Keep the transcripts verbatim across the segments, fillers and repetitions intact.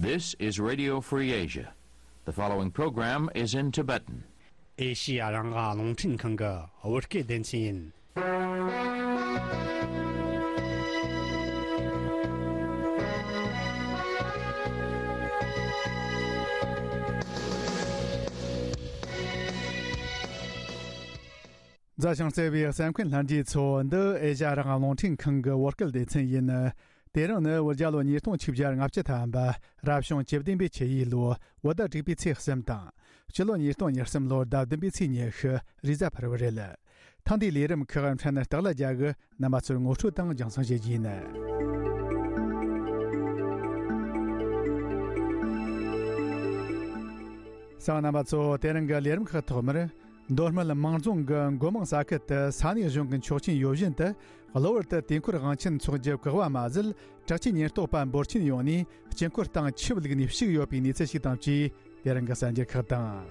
This is Radio Free Asia. The following program is in Tibetan. ཨེ་ཤི་ཡ་རང་དབང་རླུང་འཕྲིན་ཁང་གི་བོད་སྐད་སྡེ་ཚན་ཡིན། མཛའ་ཞིང་བརྩེ་བའི་གསན་མཁན་ལྷན་རྒྱས་ཚོ། འདི་ཨེ་ཤ་ཡ་རང་དབང་རླུང་འཕྲིན་ཁང་གི་བོད་སྐད་སྡེ་ཚན་ཡིན། དེ་རིང་ནི་བོད་རྒྱལ་ལོ་ཉིས་སྟོང་ཆིག་བརྒྱ་ལྔ་བཅུ་ཐམ་པ། རབ་བྱུང་བཅུ་བདུན་པའི་ཆུ་ཡོས་ལོ། བོད་ཟླ་དྲུག་པའི་ཚེས་གསུམ་དང་། སྤྱི་ལོ་ཉིས་སྟོང་ཉེར་གསུམ་ལོར་ཟླ་བདུན་པའི་ཚེས་ཉི་ཤུ་རེས་གཟའ་ཕུར་བུ་རེད། ཐེངས་འདིའི་ལས་རིམ་ཁག་འཕྲིན་སྟེགས་ལ་རྒྱ་གི་རྣམ་པ་ཚོར་ངོ་སྤྲོད་དང་རྒྱང་སྲིང་བྱེད་རྒྱུ་ཡིན། གསན་མཁན་རྣམ་པ་ཚོ། དེ་རིང་གི་ལས་རིམ་ཁག་ཐོག་མར། མདོ་སྨད་མང་རྫོང་གི་མགོ་མང་ས་ཁུལ་དུ་ས་གནས་གཞུང་གི་ཆོག་མཆན་ཡོད་བཞིན་དུ། གློ་བུར་དུ་དུས་འཁོར་དབང་ཆེན་འཚོགས་རྒྱུ་བཀག་པ་མ་ཟད། དྲག་ཆས་ཉེན་རྟོག་པ་འབོར་ཆེན་ཡོང་ནས་དཀྱིལ་འཁོར་སྟེང་ཆུ་བླུགས་ནས་བཤིག་ཡོད་པའི་གནས་ཚུལ་ཞིག་དང་བཅས། དེ་རིང་གི་གསར་འགྱུར་ཁག་དང་།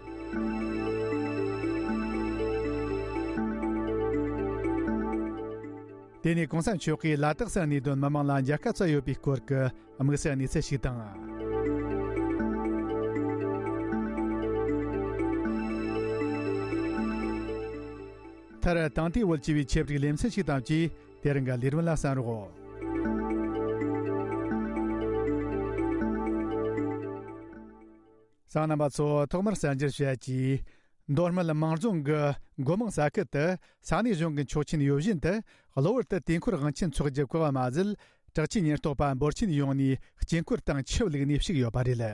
དེ་ནས་གོང་ས་མཆོག་གིས་ལ་དྭགས་སུ་གནས་སྡོད་མི་མང་ལ་མཇལ་ཁ་བསྩལ་ཡོད་པའི་སྐོར་གྱི་དམིགས་བསལ་གནས་ཚུལ་ཞིག་དང་། མཐར། དེང་དུས་བོད་སྤྱི་པའི་ཆེད་སྒྲིག་ལེ་ཚན་ཞིག་དང་བཅས། དེ་རིང་གི་ལས་རིམ་ལ་གསན་རོགས། གསན་མཁན་རྣམ་པ་ཚོ། ཐོག་མར་གསར་འགྱུར་བཤད་ཀྱིས། མདོ་སྨད་མང་རྫོང་གི་མགོ་མང་ས་ཁུལ་དུ་ས་གནས་གཞུང་གི་ཆོག་མཆན་ཡོད་བཞིན་དུ། གློ་བུར་དུ་དུས་འཁོར་དབང་ཆེན་འཚོགས་རྒྱུ་བཀག་པ་མ་ཟད། དྲག་ཆས་ཉེན་རྟོག་པ་འབོར་ཆེན་ཡོང་ནས་དཀྱིལ་འཁོར་སྟེང་ཆུ་བླུགས་ནས་བཤིག་ཡོད་པ་རེད།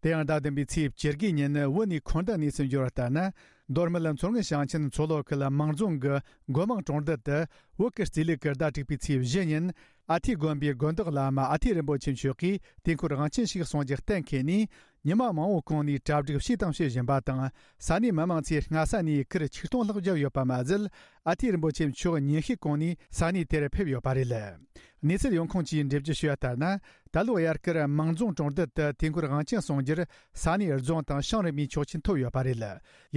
དེ་ཡང་ཟླ་བདུན་པའི་ཚེས་བཅུ་དགུའི་ཉིན་བོད་ནས་འཁོར་འདས་གནས་ཚུལ་འབྱོར་བ་ལྟར་ན། མདོ་སྨད་མཚོ་སྔོན་ཞིང་ཆེན་མཚོ་ལྷོ་ཁུལ་མང་རྫོང་གི་མགོ་མང་གྲོང་རྡལ་དུ། བོད་ཀྱི་རྩིས་ལུགས་ཀྱི་ཟླ་དྲུག་པའི་ཚེས་བཞི་ཉིན། ཨ་ཐི་དགོན་པའི་དགོན་བདག་བླ་མ་ཨ་ཐི་རིན་པོ་ཆེ་མཆོག་གིས་དུས་འཁོར་དབང་ཆེན་ཞིག་གསུང་རྒྱུ་གཏན་འཁེལ་ནས། ཉི་མ་མང་བོ་གོང་ནས་གྲ་སྒྲིག་བྱས་དང་བྱེད་བཞིན་པ་དང་། ས་གནས་མི་མང་ཚོས་སྔ་ས་ནས་གུར་ཆིག་སྟོང་ལྷག་བརྒྱབ་ཡོད་པ་མ་ཟད། ཨ་ཐི་རིན་པོ་ཆེ་མཆོག་ཉིན་ཤས་གོང་ནས་ས་གནས་དེར་ཕེབས་ཡོད་པ་རེད། གནས་ཚུལ་ཡོང་ཁུངས་ཀྱིས་འགྲེལ་བརྗོད་ཞུས་པ་ལྟར་ན། ད་ལོ་དབྱར་ཁར་མང་རྫོང་གྲོང་རྡལ་དུ་དུས་འཁོར་དབང་ཆེན་གསུང་རྒྱུར་ས་གནས་རྫོང་དང་ཞིང་རིམ་པའི་ཆོག་མཆན་ཐོབ་ཡོད་པ་རེད།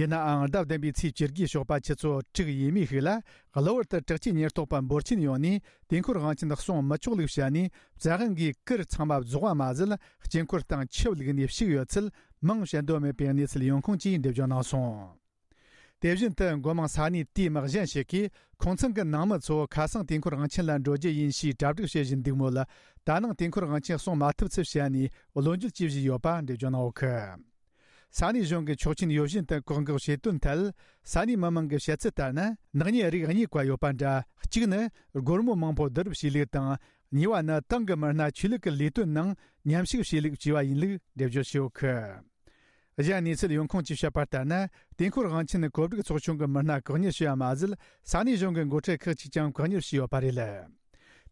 ཡིན་ནའང་ཟླ་བདུན་པའི་ཚེས་བཅུ་དགུའི་ཞོགས་པ་ཆུ་ཚོད་དྲུག་ཡས་མས་ཤིག་ལ། གློ་བུར་དུ་དྲག་ཆས་ཉེན་རྟོག་པ་འབོར་ཆེན་ཡོང་ནས་དུས་འཁོར་དབང་ཆེན་གསུང་མི་ཆོག་ལུགས་བཤད་ནས། བཙག་འཁུན་གྱིས་གུར་ཚང་མ་རྫོགས་པ་མ་ཟད། དཀྱིལ་འཁོར་སྟེང་ཆུ་བླུགས་ནས་བཤིག་ཡོད་ཚུལ་མིང་བཤད་འདོད་མེད་པའི་གནས་ཚུལ་ཡོང་ཁུངས་ཀྱིས་འགྲེལ་བརྗོད་གནང་སོང་། དེ་བཞིན་དུ་མགོ་མང་ས་གནས་དེའི་མི་གཞན་ཞིག་གིས། ཁོང་ཚང་གི་ནང་མི་ཚོ་ཁ་སང་དུས་འཁོར་དབང་ཆེན་ལ་འགྲོ་རྒྱུ་ཡིན་ཞེས་གྲ་སྒྲིག་བྱེད་བཞིན་འདུག་མོད། ད་ནངས་དུས་འཁོར་དབང་ཆེན་གསུང་མ་ཐུབ་ཚུལ་བཤད་ནས་བློ་འགྱོད་བྱེད་བཞིན་ཡོད་པ་འགྲེལ་བརྗོད་གནང་ཡོད་གི། ས་གནས་གཞུང་གི་ཆོག་མཆན་ཡོད་བཞིན་དུ་བཀག་འགོག་བྱེད་དོན་ཐད། ས་གནས་མི་མང་གི་བཤད་ཚུལ་ལྟར་ན། ནག་ཉེས་རིགས་གཉིས་ཀ་ཡོད་པ་འདྲ། གཅིག་ནི་སྒོར་མོ་མང་པོ་བསྡུ་རུབ་བྱས་ལུགས་དང་། གཉིས་པ་ནི་ཏང་གི་མི་སྣ་ཆོས་ལུགས་ཀྱི་ལས་དོན་ནང་མཉམ་ཞུགས་བྱས་ལུགས་བཅས་པ་ཡིན་ལུགས་འགྲེལ་བརྗོད་བྱས་ཡོད་གི། གཞན་གནས་ཚུལ་ཡོང་ཁུངས་ཀྱིས་བཤད་པ་ལྟར་ན། དུས་འཁོར་དབང་ཆེན་གོ་སྒྲིག་ཚོགས་ཆུང་གི་མི་སྣ་བཀག་ཉར་བྱས་པ་མ་ཟད། ས་གནས་གཞུང་གི་འགོ་ཁྲིད་ཁག་ཅིག་ཀྱང་བཀག་ཉར་བྱས་ཡོད་པ་རེད།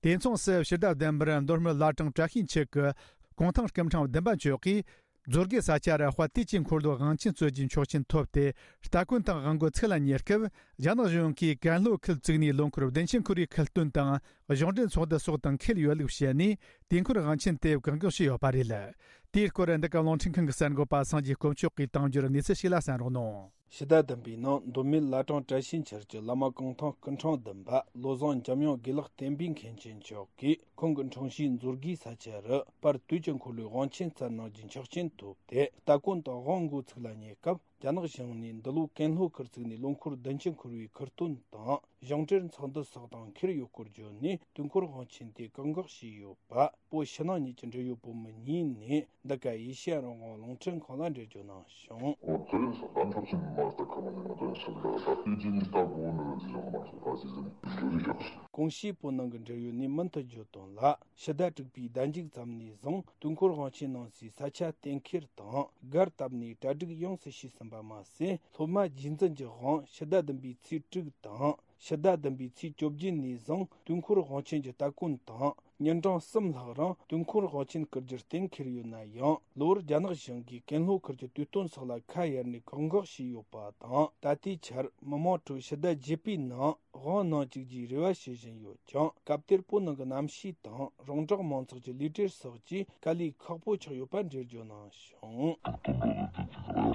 དེ་མཚུངས་སུ་ཕྱི་ཟླ་བདུན་པར་མདོ་སྨད་བླ་བྲང་བཀྲ་ཤིས་འཁྱིལ་གྱི་གུང་ཐང་སྐུ་ཕྲེང་བདུན་པ་མཆོག་གིས། རྫོང་དགེ་ས་ཆ་ར་དཔལ་དུས་ཀྱི་འཁོར་ལོའི་དབང་ཆེན་སྩོལ་རྒྱུའི་ཆོག་མཆན་ཐོབ་སྟེ། སྟ་གོན་དང་དབང་མགོ་ཚིག་ལ་ཉར་སྐབས། རྒྱ་ནག་གཞུང་གིས་ཀན་ལྷོ་ཁུལ་བཙུགས་ནས་ལོ་འཁོར་བདུན་ཅུ་འཁོར་བའི་ཁུལ་སྟོན་དང་གཞུང་འབྲེལ་ཚོགས་འདུ་སོགས་དང་འཁེལ་ཡོད་ལུགས་བཤད་ནས། དུས་འཁོར་དབང་ཆེན་དེ་བཀག་འགོག་བྱས་ཡོད་པ་རེད། དེའི་སྐོར་འདི་ག་རླུང་འཕྲིན་ཁང་གི་གསར་འགོད་པ་སངས་རྒྱས་དཀོན་མཆོག་གིས་དང་འབྱོར་གནས་ཚུལ་ཞིག་ལ་གསན་རོགས་གནང་། ཕྱི་ཟླ་བདུན་པའི་ནང་མདོ་སྨད་བླ་བྲང་བཀྲ་ཤིས་འཁྱིལ་གྱི་བླ་མ་གུང་ཐང་སྐུ་ཕྲེང་བདུན་པ་བློ་བཟང་འཇམ་དབྱངས་དགེ་ལེགས་བསྟན་པའི་མཁན་ཆེན་མཆོག་གིས། ཁོང་གི་འཁྲུངས་གཞིས་མཛོད་དགེའི་ས་ཆ་རུ་དཔལ་དུས་ཀྱི་འཁོར་ལོའི་དབང་ཆེན་སྩལ་གནང་རྒྱུའི་ཆོག་མཆན་ཐོབ་སྟེ། སྟ་གོན་དང་དབང་མགོ་ཚིག་ལ་ཉར་སྐབས། རྒྱ་ནག་གཞུང་ནས་འདི་ལོ་ཀན་ལྷོ་ཁུལ་བཙུགས་ནས་ལོ་འཁོར་བདུན་ཅུ་འཁོར་བའི་ཁུལ་སྟོན་དང་གཞུང་འབྲེལ་ཚོགས་འདུ་སོགས་དང་འཁེལ་ཡོད་སྐོར་བརྗོད་ནས། དུས་འཁོར་དབང་ཆེན་དེ་བཀག་འགོག་བྱས་ཡོད་པ། བོད་ཕྱི་ནང་གཉིས་ཀྱི་འབྲེལ་ཡོད་བུ་མོ་གཉིས་ནས་འདི་ག་ཨེ་ཤེ་ཡ་རང་དབང་རླུང་འཕྲིན་ཁང་ལ་འགྲེལ་བརྗོད་གནང་བྱུང་། ཨོ་དེ་རིང་སང་ག་འཁྲབ་ཆེན་མ་སྟག་ཁ་མ་ནས་ང་དོན་ཟེར་ལ་ད་ལྟའི་རྗེས་ནས་ལྟ་དགོས་ནི་རེད་ཟེར་མ་སོང་ད་ཟེར་ཟེར་ནས་འགྲོ་རིགས་ཤག་ཀོང་ཞིའི་བོད་ནང་གི་འབྲེལ་ཡོད་ནས་མུ་མཐུད་བརྗོད་དོན་ལ། ཕྱི་ཟླ་དྲུག་པའི་ཟླ་མཇུག་ཙམ་ནས་བཟུང་དུས་འཁོར་དབང་ཆེན་གནང་སའི་ས་ཆ་གཏན་འཁེལ་དང་སྒར་བཏབ་ནས་གྲ་སྒྲིག་ཡོངས་སུ་བྱས་ཟིན་པ་མ་ཟད། སློབ་མ་རྗེས་འཛིན་གྱི་དབང་ཕྱི་ཟླ་བདུན་པའི་ཚེས་དྲུག་དང་། ཕྱི་ཟླ་བདུན་པའི་ཚེས་བཅོ་བརྒྱད་ནས་བཟུང་དུས་འཁོར་དབང་ཆེན་གྱི་སྟ་གོན་དང་། ཉིན་གྲངས་གསུམ་ལྷག་རིང་དུས་འཁོར་དབང་ཆེན་བསྐུར་རྒྱུར་གཏན་འཁེལ་ཡོད་ན་ཡང་། གློ་བུར་རྒྱ་ནག་གཞུང་གིས་ཀན་ལྷོ་ཁུལ་གྱི་དུས་སྟོན་སོགས་ལ་ཁ་གཡར་ནས་བཀག་འགོག་བྱས་ཡོད་པ་དང་། ད་ལྟའི་ཆར་མི་མང་ཁྲོད་ཕྱི་ཟླ་བརྒྱད་པའི་ནང་དབང་གནང་བཅུག་རྒྱུའི་རེ་བ་བྱེད་བཞིན་ཡོད་ཀྱང་། སྐབས་དེར་བོད་ནང་གི་གནམ་གཤིས་དང་རོང་འབྲོག་མང་ཚོགས་ཀྱི་ལུས་བྲེལ་སོགས་ཀྱིས་དཀའ་ལས་ཁག་པོ་ཆགས་ཡོད་པ་འགྲེལ་བརྗོད་གནང་བྱུང་། དུས་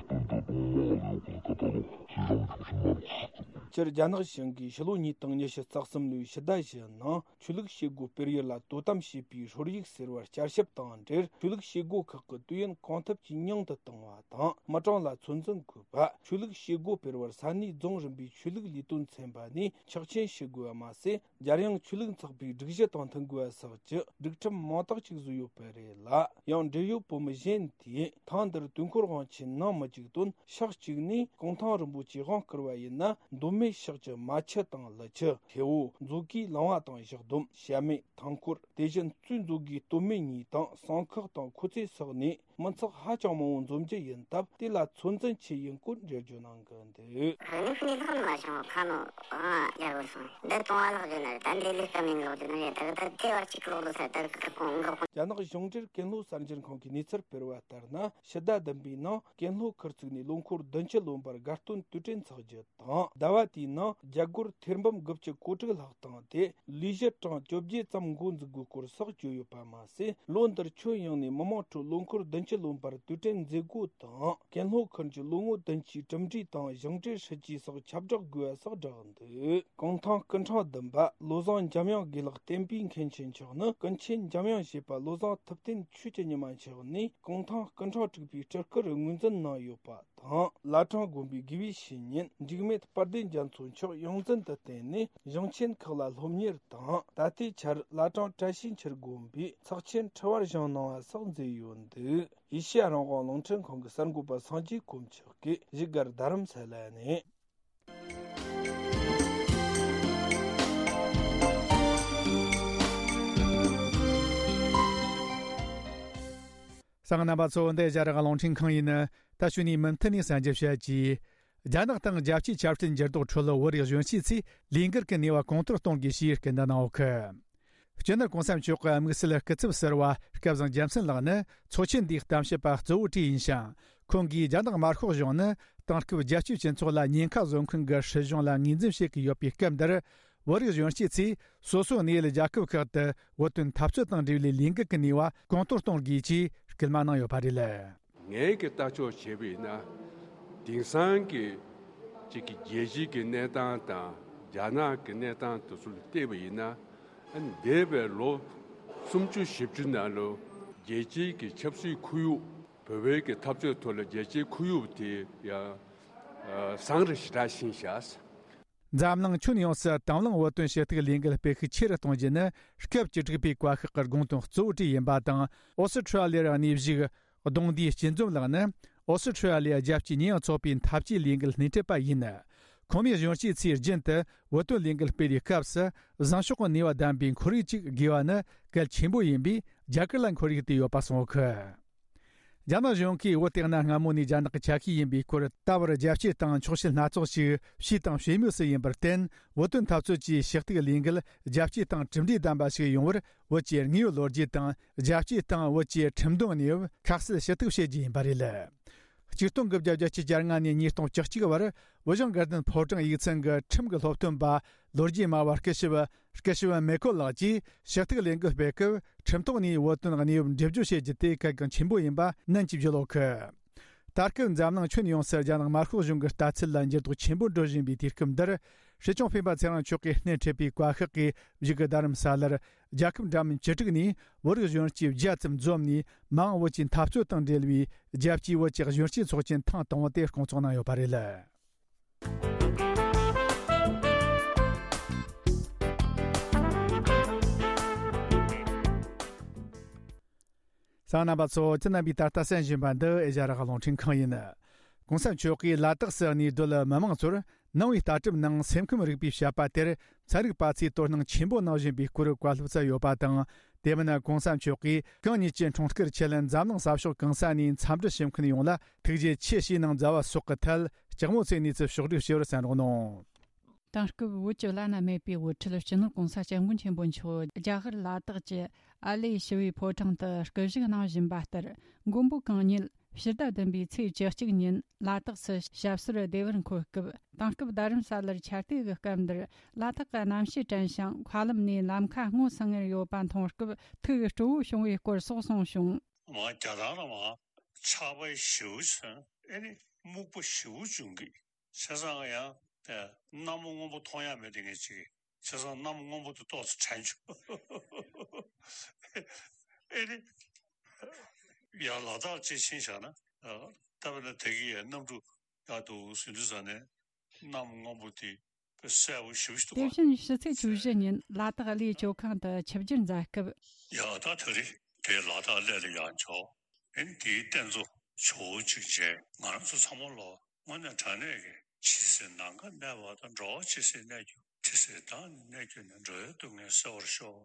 སྟོན་འདི་ལས་དུས་ཀྱི་རེ་བ་སྟོན་དང་དགོངས་པ་ལ་ཡོད་པའི་ཀ་ཏ་ལོ་ཤེས་རབ་ཆོག་ཤིང་མ་རུ་ཁག་ཏུ། སྤྱིར་རྒྱ་ནག་གཞུང་གིས་ཕྱི་ལོ་ཉིས་སྟོང་ཉི་ཤུ་རྩ་གསུམ་ལོའི་ཕྱི་ཟླ་བཞི་ནང་ཆོས་ལུགས་བྱེད་སྒོ་སྤེལ་ཡུལ་ལ་དོ་དམ་བྱེད་པའི་ཧྲོལ་ཡིག་ཟེར་བར་བསྐྱར་ཞིབ་དང་འབྲེལ། ཆོས་ལུགས་བྱེད་སྒོ་ཁག་གི་དུས་ཡུན་གང་ཐུབ་ཀྱིས་ཉུང་དུ་གཏོང་བ་དང་། མི་གྲངས་ལ་ཚོད་འཛིན་དགོས་པ། ཆོས་ལུགས་བྱེད་སྒོ་སྤེལ་བར་ས་གནས་རྫོང་རིམ་པའི་ཆོས་ལུགས་ལས་དོན་ཚན་པ་ནས་ཆོག་མཆན་ཞུ་དགོས་པ་མ་ཟད། རྒྱལ་ཡོངས་ཆོས་ལུགས་ཚོགས་པའི་སྒྲིག་གཞི་དང་མཐུན་དགོས་པ་སོགས་ཀྱི་སྒྲིག་ཁྲིམས་མང་དག་ཅིག་བཟོས་ཡོད་པ་རེད་ལ། ཡང་འབྲེལ་ཡོད་བོད་མི་གཞན་དེས་ཐེངས་འདིར་དུས་འཁོར་དབང་ཆེན་གནང་མི་བཅུག་དོན། ཕྱོགས་གཅིག་ནས་གུང་ཐང་རིན་པོ་ཆེ་དབང་བསྐུར་བ་ཡིན་ན་མདོ་སྨད་ཕྱོགས་ཀྱི་མ་ཆུ་དང་ཀླུ་ཆུ། ཐེ་བོ། མཛོ་དགེའི་ལུང་བ་དང་བཞག་སྡོམ། བྱ་སྨད། ཐང་སྐོར། དེ་བཞིན་གཙོས་མཛོ་དགེའི་སྟོད་སྨད་གཉིས་དང་བསང་ཁག་དང་ཁོ་ཚེ་སོགས་ནས་མི་ཚོགས་ཧ་ཅང་མང་བོ་འཛོམས་རྒྱུ་ཡིན་སྟབས། དེ་ལ་ཚོད་འཛིན་ཆེ་ཡིན་སྐོར་འགྲེལ་བརྗོད་གནང་གི་འདུག། དངོས་ཤུགས་ནས་ལྷག་མ་བྱུང་། ཁ་ནོ་ཨང་རྒྱལ་པོ་སོང་། འདི་གཏོང་བ་ལྷག་རྒྱུ་ན་རེད། ད་འདི་ལས་སྐབས་ནས་ལོག་རྒྱུ་ན་རེད། ད་ད་དེ་བར་གཅིག་ལོག་ཏུ་ས་ད་གི་ཁོང་གི། རྒྱ་ནག་གཞུང་འབྲེལ་ཀན་ལྷོ་གསར་འགྱུར་ཁང་གིས་གནས་ཚུལ་སྤེལ་བ་ལྟར་ན། ཕྱི་ཟླ་བདུན་པའི་ནང་ཀན་ལྷོ་ཁུལ་བཙུགས་ནས་ལོ་འཁོར་བདུན་ཅུ་ལོན་པར་དགའ་སྟོན་དུས་དྲན་འཚོགས་རྒྱུ་དང་། ཟླ་བ་དེའི་ནང་རྒྱ་སྒོར་ཐེར་འབུམ་དགུ་བཅུ་གོ་དྲུག་ལྷག་བཏང་སྟེ། ལས་གཞི་གྲངས་བཅོ་བརྒྱད་ཙམ་འགོ་འཛུགས་དགོས་སྐོར་སོགས་བརྗོད་ཡོད་པ་མ་ཟད། ལོ་འདིར་ཁྱོན་ཡོངས་ནས་མི་མང་ཁྲོད་ལོ་འཁོར་བདུན་ཅུ་ལོན་པར་དུས་དྲན་མཛད་སྒོ་དང་། ཀན་ལྷོ་ཁུལ་གྱི་ལོ་ངོ་བདུན་ཅུའི་གྲུབ་འབྲས་དང་ཞིང་བྲེལ་སྲིད་ཇུས་སོགས་ཁྱབ་བསྒྲགས་དགོས་པ་སོགས་བསྒྲགས་འདུག། གུང་ཐང་སྐུ་ཕྲེང་བདུན་པ་བློ་བཟང་འཇམ་དབྱངས་དགེ་ལགས་བསྟན་པའི་མཁན་ཆེན་མཆོག་ནི་ཀུན་མཁྱེན་འཇམ་དབྱངས་བཞད་པ་བློ་བཟང་ཐུབ་བསྟན་ཆོས་ཀྱི་ཉི་མ་མཆོག་ནས་གུང་ཐང་སྐུ་ཕྲེང་དྲུག་པའི་སྤྲུལ་སྐུར་ངོས་འཛིན་གནང་ཡོད་པ་དང་། བླ་བྲང་དགོན་པའི་དགེ་བའི་བཤེས་གཉེན་འཇིགས་མེད་དཔལ་ལྡན་རྒྱ་མཚོ་མཆོག་ཡོངས་འཛིན་དུ་བསྟེན་ནས་གཞུང་ཆེན་ཁག་ལ་སློབ་གཉེར་དང་། ད་ལྟའི་ཆར་བླ་བྲང་བཀྲ་ཤིས་འཁྱིལ་དགོན་པའི་ཚོགས་ཆེན་ཁྲི་བར་བཞེངས་གནང་བ་སོགས་མཛད་ཡོད་འདུག། ཨེ་ཤེ་ཡ་རང་དབང་རླུང་འཕྲིན་ཁང་གི་གསར་འགོད་པ་སངས་རྒྱས་དཀོན་མཆོག་གིས་བཞུགས་སྒར་རྡ་རམ་ས་ལ་ནས། གསན་མཁན་རྣམ་པ་ཚོ། འདི་ཨེ་ཤེ་ཡ་རང་དབང་རླུང་འཕྲིན་ཁང་ཡིན། ད་གཞུག་ནས་མུ་མཐུད་ནས་གསན་རྒྱུ་བྱ་རྒྱུ། རྒྱ་ནག་དང་རྒྱལ་སྤྱིའི་ཆབ་སྲིད་འགྱུར་ལྡོག་ཁྲོད་བོད་རིགས་གཞོན་སྐྱེས་ཚོས་ལས་འགུལ་གྱི་ནུས་པ་གོང་མཐོར་གཏོང་དགོས་ཞེས་སྐུལ་འདེད་གནང་ཡོད་གི། སྤྱི་ནོར་གོང་ས་མཆོག་གི་དམིགས་བསལ་སྐུ་ཚབ་ཟུར་པ་སྐལ་བཟང་རྒྱལ་མཚན་ལགས་ནི་ཚོགས་ཆེན་འདིའི་གཏམ་བཤད་པ་གཙོ་བོ་གྲས་ཡིན་ཞིང་། ཁོང་གིས་རྒྱ་ནག་དམར་ཤོག་གཞུང་ནི་དེང་སྐབས་རྒྱལ་སྤྱིའི་སྤྱི་ཚོགས་ལ་ཉེན་ཁ་བཟོ་མཁན་གྱི་སྲིད་གཞུང་ལ་ངོས་འཛིན་བྱེད་ཀྱི་ཡོད་པའི་སྐབས་འདིར། བོད་རིགས་གཞོན་སྐྱེས་ཚོས་སོ་སོའི་གནས་ཡུལ་རྒྱལ་ཁབ་ཁག་ཏུ་བོད་དོན་འཐབ་རྩོད་དང་འབྲེལ་བའི་ལས་འགུལ་གྱི་ནུས་པ་གོང་མཐོར་གཏོང་དགོས་ཅེས་སྐུལ་མ་གནང་ཡོད་པ་རེད། ངས་ཀྱི་ལྟ་ཕྱོགས་བྱས་པ་ཡིན་ན། དེང་སང་གི་གཅིག་གི་རྒྱལ་སྤྱིའི་གི་གནས་སྟངས་དང་རྒྱ་ནག་གི་གནས་སྟངས་དེ་ཚོ་ལ་བལྟས་པ་ཡིན་ན། ཨ་ནི་འདས་པའི་ལོ་སུམ་ཅུ་བཞི་བཅུ་ནང་ལོ་རྒྱལ་སྤྱིའི་གི་ཆབ་སྲིད་ཁོར་ཡུག་བོད་པའི་གི་འཐབ་རྩོད་ཐོག་ལ་རྒྱལ་སྤྱིའི་ཁོར་ཡུག་དེ་ཡང་བཟང་རུ་ཞེ་དྲག་ཕྱིན་ཤག། འཛམ་གླིང་ཁྱོན་ཡོངས་སུ་དང་བླངས་བོད་དོན་ཞུ་གཏུག་ལས་འགུལ་སྤེལ་ཤུགས་ཆེ་རུ་གཏོང་རྒྱུ་ནི་སྐབས་བཅུ་དྲུག་པའི་བཀའ་ཤག་གི་དགོངས་དོན་གཙོ་བོ་གྲས་ཡིན་པ་དང་། ཨོ་སི་ཁྲུ་ལི་ཡར་གནས་བཞུགས་གདུང་སྡེའི་སྐྱིད་འཛོམས་ལགས་ནི་ཨོ་སི་ཁྲུ་ལི་ཡ་རྒྱལ་སྤྱིའི་ཉེས་ཡངས་ཚོགས་པའི་འཐབ་ཇུས་ལས་འགུལ་སྣེ་ཁྲིད་པ་ཡིན། ཁོང་མོས་གཞོན་སྐྱེས་ཚོས་རྒྱུན་དུ་བོད་དོན་ལས་འགུལ་སྤེལ་བའི་སྐབས་སུ་བཟང་ཕྱོགས་ཀྱི་ནུས་པ་ལྡན་པའི་ཁོར་ཡུག་ཅིག་དགོས་པ་ནི་གལ་ཆེན་པོ་ཡིན་པས། རྒྱ་གར་ལ་ཁོར་ཡུག་དེ་ཡོད་པ་གསུངས་ཡོད་གི། རྒྱ་ནག་གཞུང་གིས་བོད་དེ་གནའ་སྔ་མོ་ནས་རྒྱ་ནག་གི་ཆ་ཤས་ཡིན་པའི་སྐོར་ད་བར་རྒྱལ་སྤྱིའི་སྟེང་འཁྱོག་བཤད་སྣ་ཚོགས་ཤིག་བྱས་དང་བྱེད་མུས་སུ་ཡིན་པར་བརྟེན། བོད་དོན་འཐབ་རྩོད་ཀྱི་ཞུ་གཏུག་ལས་འགུལ་རྒྱལ་སྤྱིའི་སྟེང་གྲུབ་འབྲས་ལྡན་པ་ཞིག་ཡོང་བར་བོད་ཀྱི་དངོས་ཡོད་ལོ་རྒྱུས་དང་། རྒྱལ་སྤྱིའི་སྟེང་བོད་ཀྱི་ཁྲིམས་དོན་གནས་བབ་ཁ་གསལ་ཞུ་གཏུག་བྱེད་རྒྱུ་ཡིན་པ་རེད། ཆིག་སྟོང་དགུ་བརྒྱ་བརྒྱད་ཅུ་གྱ་ལྔ་ནས་ཉིས་སྟོང་བཅུ་གཅིག་བར་བོད་གཞུང་དགའ་ལྡན་ཕོ་བྲང་ཡིག་ཚང་གི་ཁྲིམས་ཀྱི་སློབ་སྟོན་པ་ལོ་རྒྱུས་སྨྲ་བ་སྐུ་ཞབས་སྐུ་ཞབས་མེ་ཀོ་ལགས་ཀྱིས་ཞུ་གཏུག་ལས་འགུལ་སྤེལ་སྐབས། ཁྲིམས་ཐོག་ནས་བོད་དོན་གནས་བབ་འགྲེལ་བརྗོད་བྱེད་རྒྱུ་དེ་གལ་འགངས་ཆེན་པོ་ཡིན་པ་ནན་གྱིས་བརྗོད་ཡོད་གི། ད་སྐབས་འཛམ་གླིང་ཁྱོན་ཡོངས་སུ་རྒྱ་ནག་དམར་ཤོག་གཞུང་གི་ལྟ་ཚུལ་ལ་འགྱུར་ལྡོག་ཆེན་པོ་འགྲོ་བཞིན་པའི་དུས་སྐབས་འདིར། སྲིད་སྐྱོང་སྤེན་པ་ཚེ་རིང་མཆོག་གིས་སྣེ་ཁྲིད་པའི་བཀའ་ཤག་གིས་བཞུགས་སྒར་རྡ་རམ་ས་ལར། རྒྱལ་ཁབ་འདྲ་མིན་བཅུ་དྲུག་ནས་བོད་རིགས་གཞོན་སྐྱེས་བརྒྱ་ཙམ་འཛོམས་ནས། མ་འོངས་བོད་ཀྱི་འཐབ་རྩོད་དང་འབྲེལ་བའི་རྒྱལ་སྤྱིའི་བོད་ཀྱི་གཞོན་སྐྱེས་ཚོགས་ཆེན་ཐེངས་དང་པོ་དེ་སྐོང་ཚོགས་གནང་ཡོད་པ་རེད། གསན་མཁན་རྣམ་པ་ཚོ། ཁྱེད་རྣམ་པས་ད་ལྟ་གསན་བཞིན་པ་འདི་ཨེ་ཤ་ཡ་རང་དབང་རླུང་འཕྲིན་ཁང་ཡིན། གོང་ས་མཆོག་གིས་ལ་དྭགས་སུ་གནས་སྡོད་མི་མང་ཚོར་ནང་པའི་ལྟ་གྲུབ་ནང་སེམས་ཁམས་རིག་པའི་བཤད་པ་དེར་ཚན་རིག་པ་ཚོས་དོ་སྣང་ཆེན་པོ་གནང་བཞིན་པའི་སྐོར་བཀའ་སློབ་སྩལ་ཡོད་པ་དང་། དེ་མིན་གོང་ས་མཆོག་གིས་གང་ཉིད་ཀྱི་འཁྲུངས་སྐར་ཆེད་འཛམ་གླིང་ས་ཕྱོགས་གང་ས་ནས་འཚམས་འདྲི་ཞུ་མཁན་ཡོངས་ལ་ཐུགས་རྗེ་ཆེ་ཞེས་གནང་མཛད་པ་སོགས་ཀྱི་ཐད་ལྕགས་མོ་ཚོས་གནས་ཚུལ་ཕྱོགས་བསྒྲིགས་ཞུ་བར་གསན་རོགས་གནང་། དེང་སྐབས་བོད་ཀྱི་བླ་ན་མེད་པའི་དབུ་ཁྲིད་སྤྱི་ནོར་༸གོང་ས་༸སྐྱབས་མགོན་ཆེན་པོ་མཆོག་རྒྱ་གར་ལ་དྭགས་ཀྱི་ཨ་ལེ་ཞི་བའི་ཕོ་བྲང་དུ་སྐུ་བཞུགས་གནང་བཞིན་པ་ལྟར། མགོན་པོ་གང་ཉིད་ཕྱི་ཟླ་བདུན་པའི་ཚེས་བཅུ་གཅིག་ཉིན་ལ་དྭགས་སུ་ཞབས་སོར་བདེ་བར་འཁོད་སྐབས། དེང་སྐབས་རྡ་རམ་ས་ལར་ཆར་དུས་ཀྱི་སྐབས་འདིར་ལ་དྭགས་ཀྱི་གནམ་གཤིས་དྲན་ཞིང་། མཁའ་ལམ་ནས་ལམ་ཁ་སྔོ་སིང་ངེར་ཡོད་པ་མཐོང་སྐབས་ཐུགས་སྤྲོ་བོ་བྱུང་བའི་སྐོར་སོགས་གསུངས་བྱུང་། མ་རྒྱ་ཐང་ལ་མ་ཆར་པ་ཞེ་པོ་བྱུང་། ཨེ་ནི་སྨུག་པ་ཞེ་པོ་བྱུང་གི། བྱས་ཙང་ཡང་ ཨ། གནམ་སྔོན་པོ་མཐོང་ཡ་མེད་དེ་ངས་ཅིག་བྱས་ཙང་གནམ་སྔོན་པོ་དེ་ཏོག་ཙམ་དྲན་བྱུང་། ཨེ་རེད། ཡར་ལ་དྭགས་ཅིག་ཕྱིན་བཞག་ན། ཨ། ད་དཔེར་ན་དེ་གི་ཡ་གནམ་གྲུ་ཡར་འདུག་ཟིན་དུས་ཙ་ནས་གནམ་སྔོན་པོ་དེ་གསལ་པོ་ཞེ་པོ་ཞིག་འདུག་ག། དེ་བཞིན་ཕྱི་ཚེས་བཅུ་བཞི་ཉིན་ལ་དྭགས་གླེ་སྤྱོད་ཁང་དུ་ཆིབས་བསྒྱུར་མཛད་སྐབས། ཡ་ད་དེ་རེད། དེ་ལ་དྭགས་གླེ་ལ་ཡར་འབྱོར། ཨེ་དེའི་རྟེན་གཙོ་ཇོ་བོ་གཅིག་མཇལ། ང་རང་ཚོ་ཚང་མ་ལོ་དངོས་གནས་དྲང་གནས་ཀྱི་ཕྱི་སེམས་ནམ་མཁའ་གནས་པ་དང་། འགྲོ་བ་ཇི་སྲིད་གནས་གྱུར། དེ་སྲིད་བདག་ནི་གནས་གྱུར་ནས། འགྲོ་བའི་སྡུག་བསྔལ་སེལ་བར་ཤོག།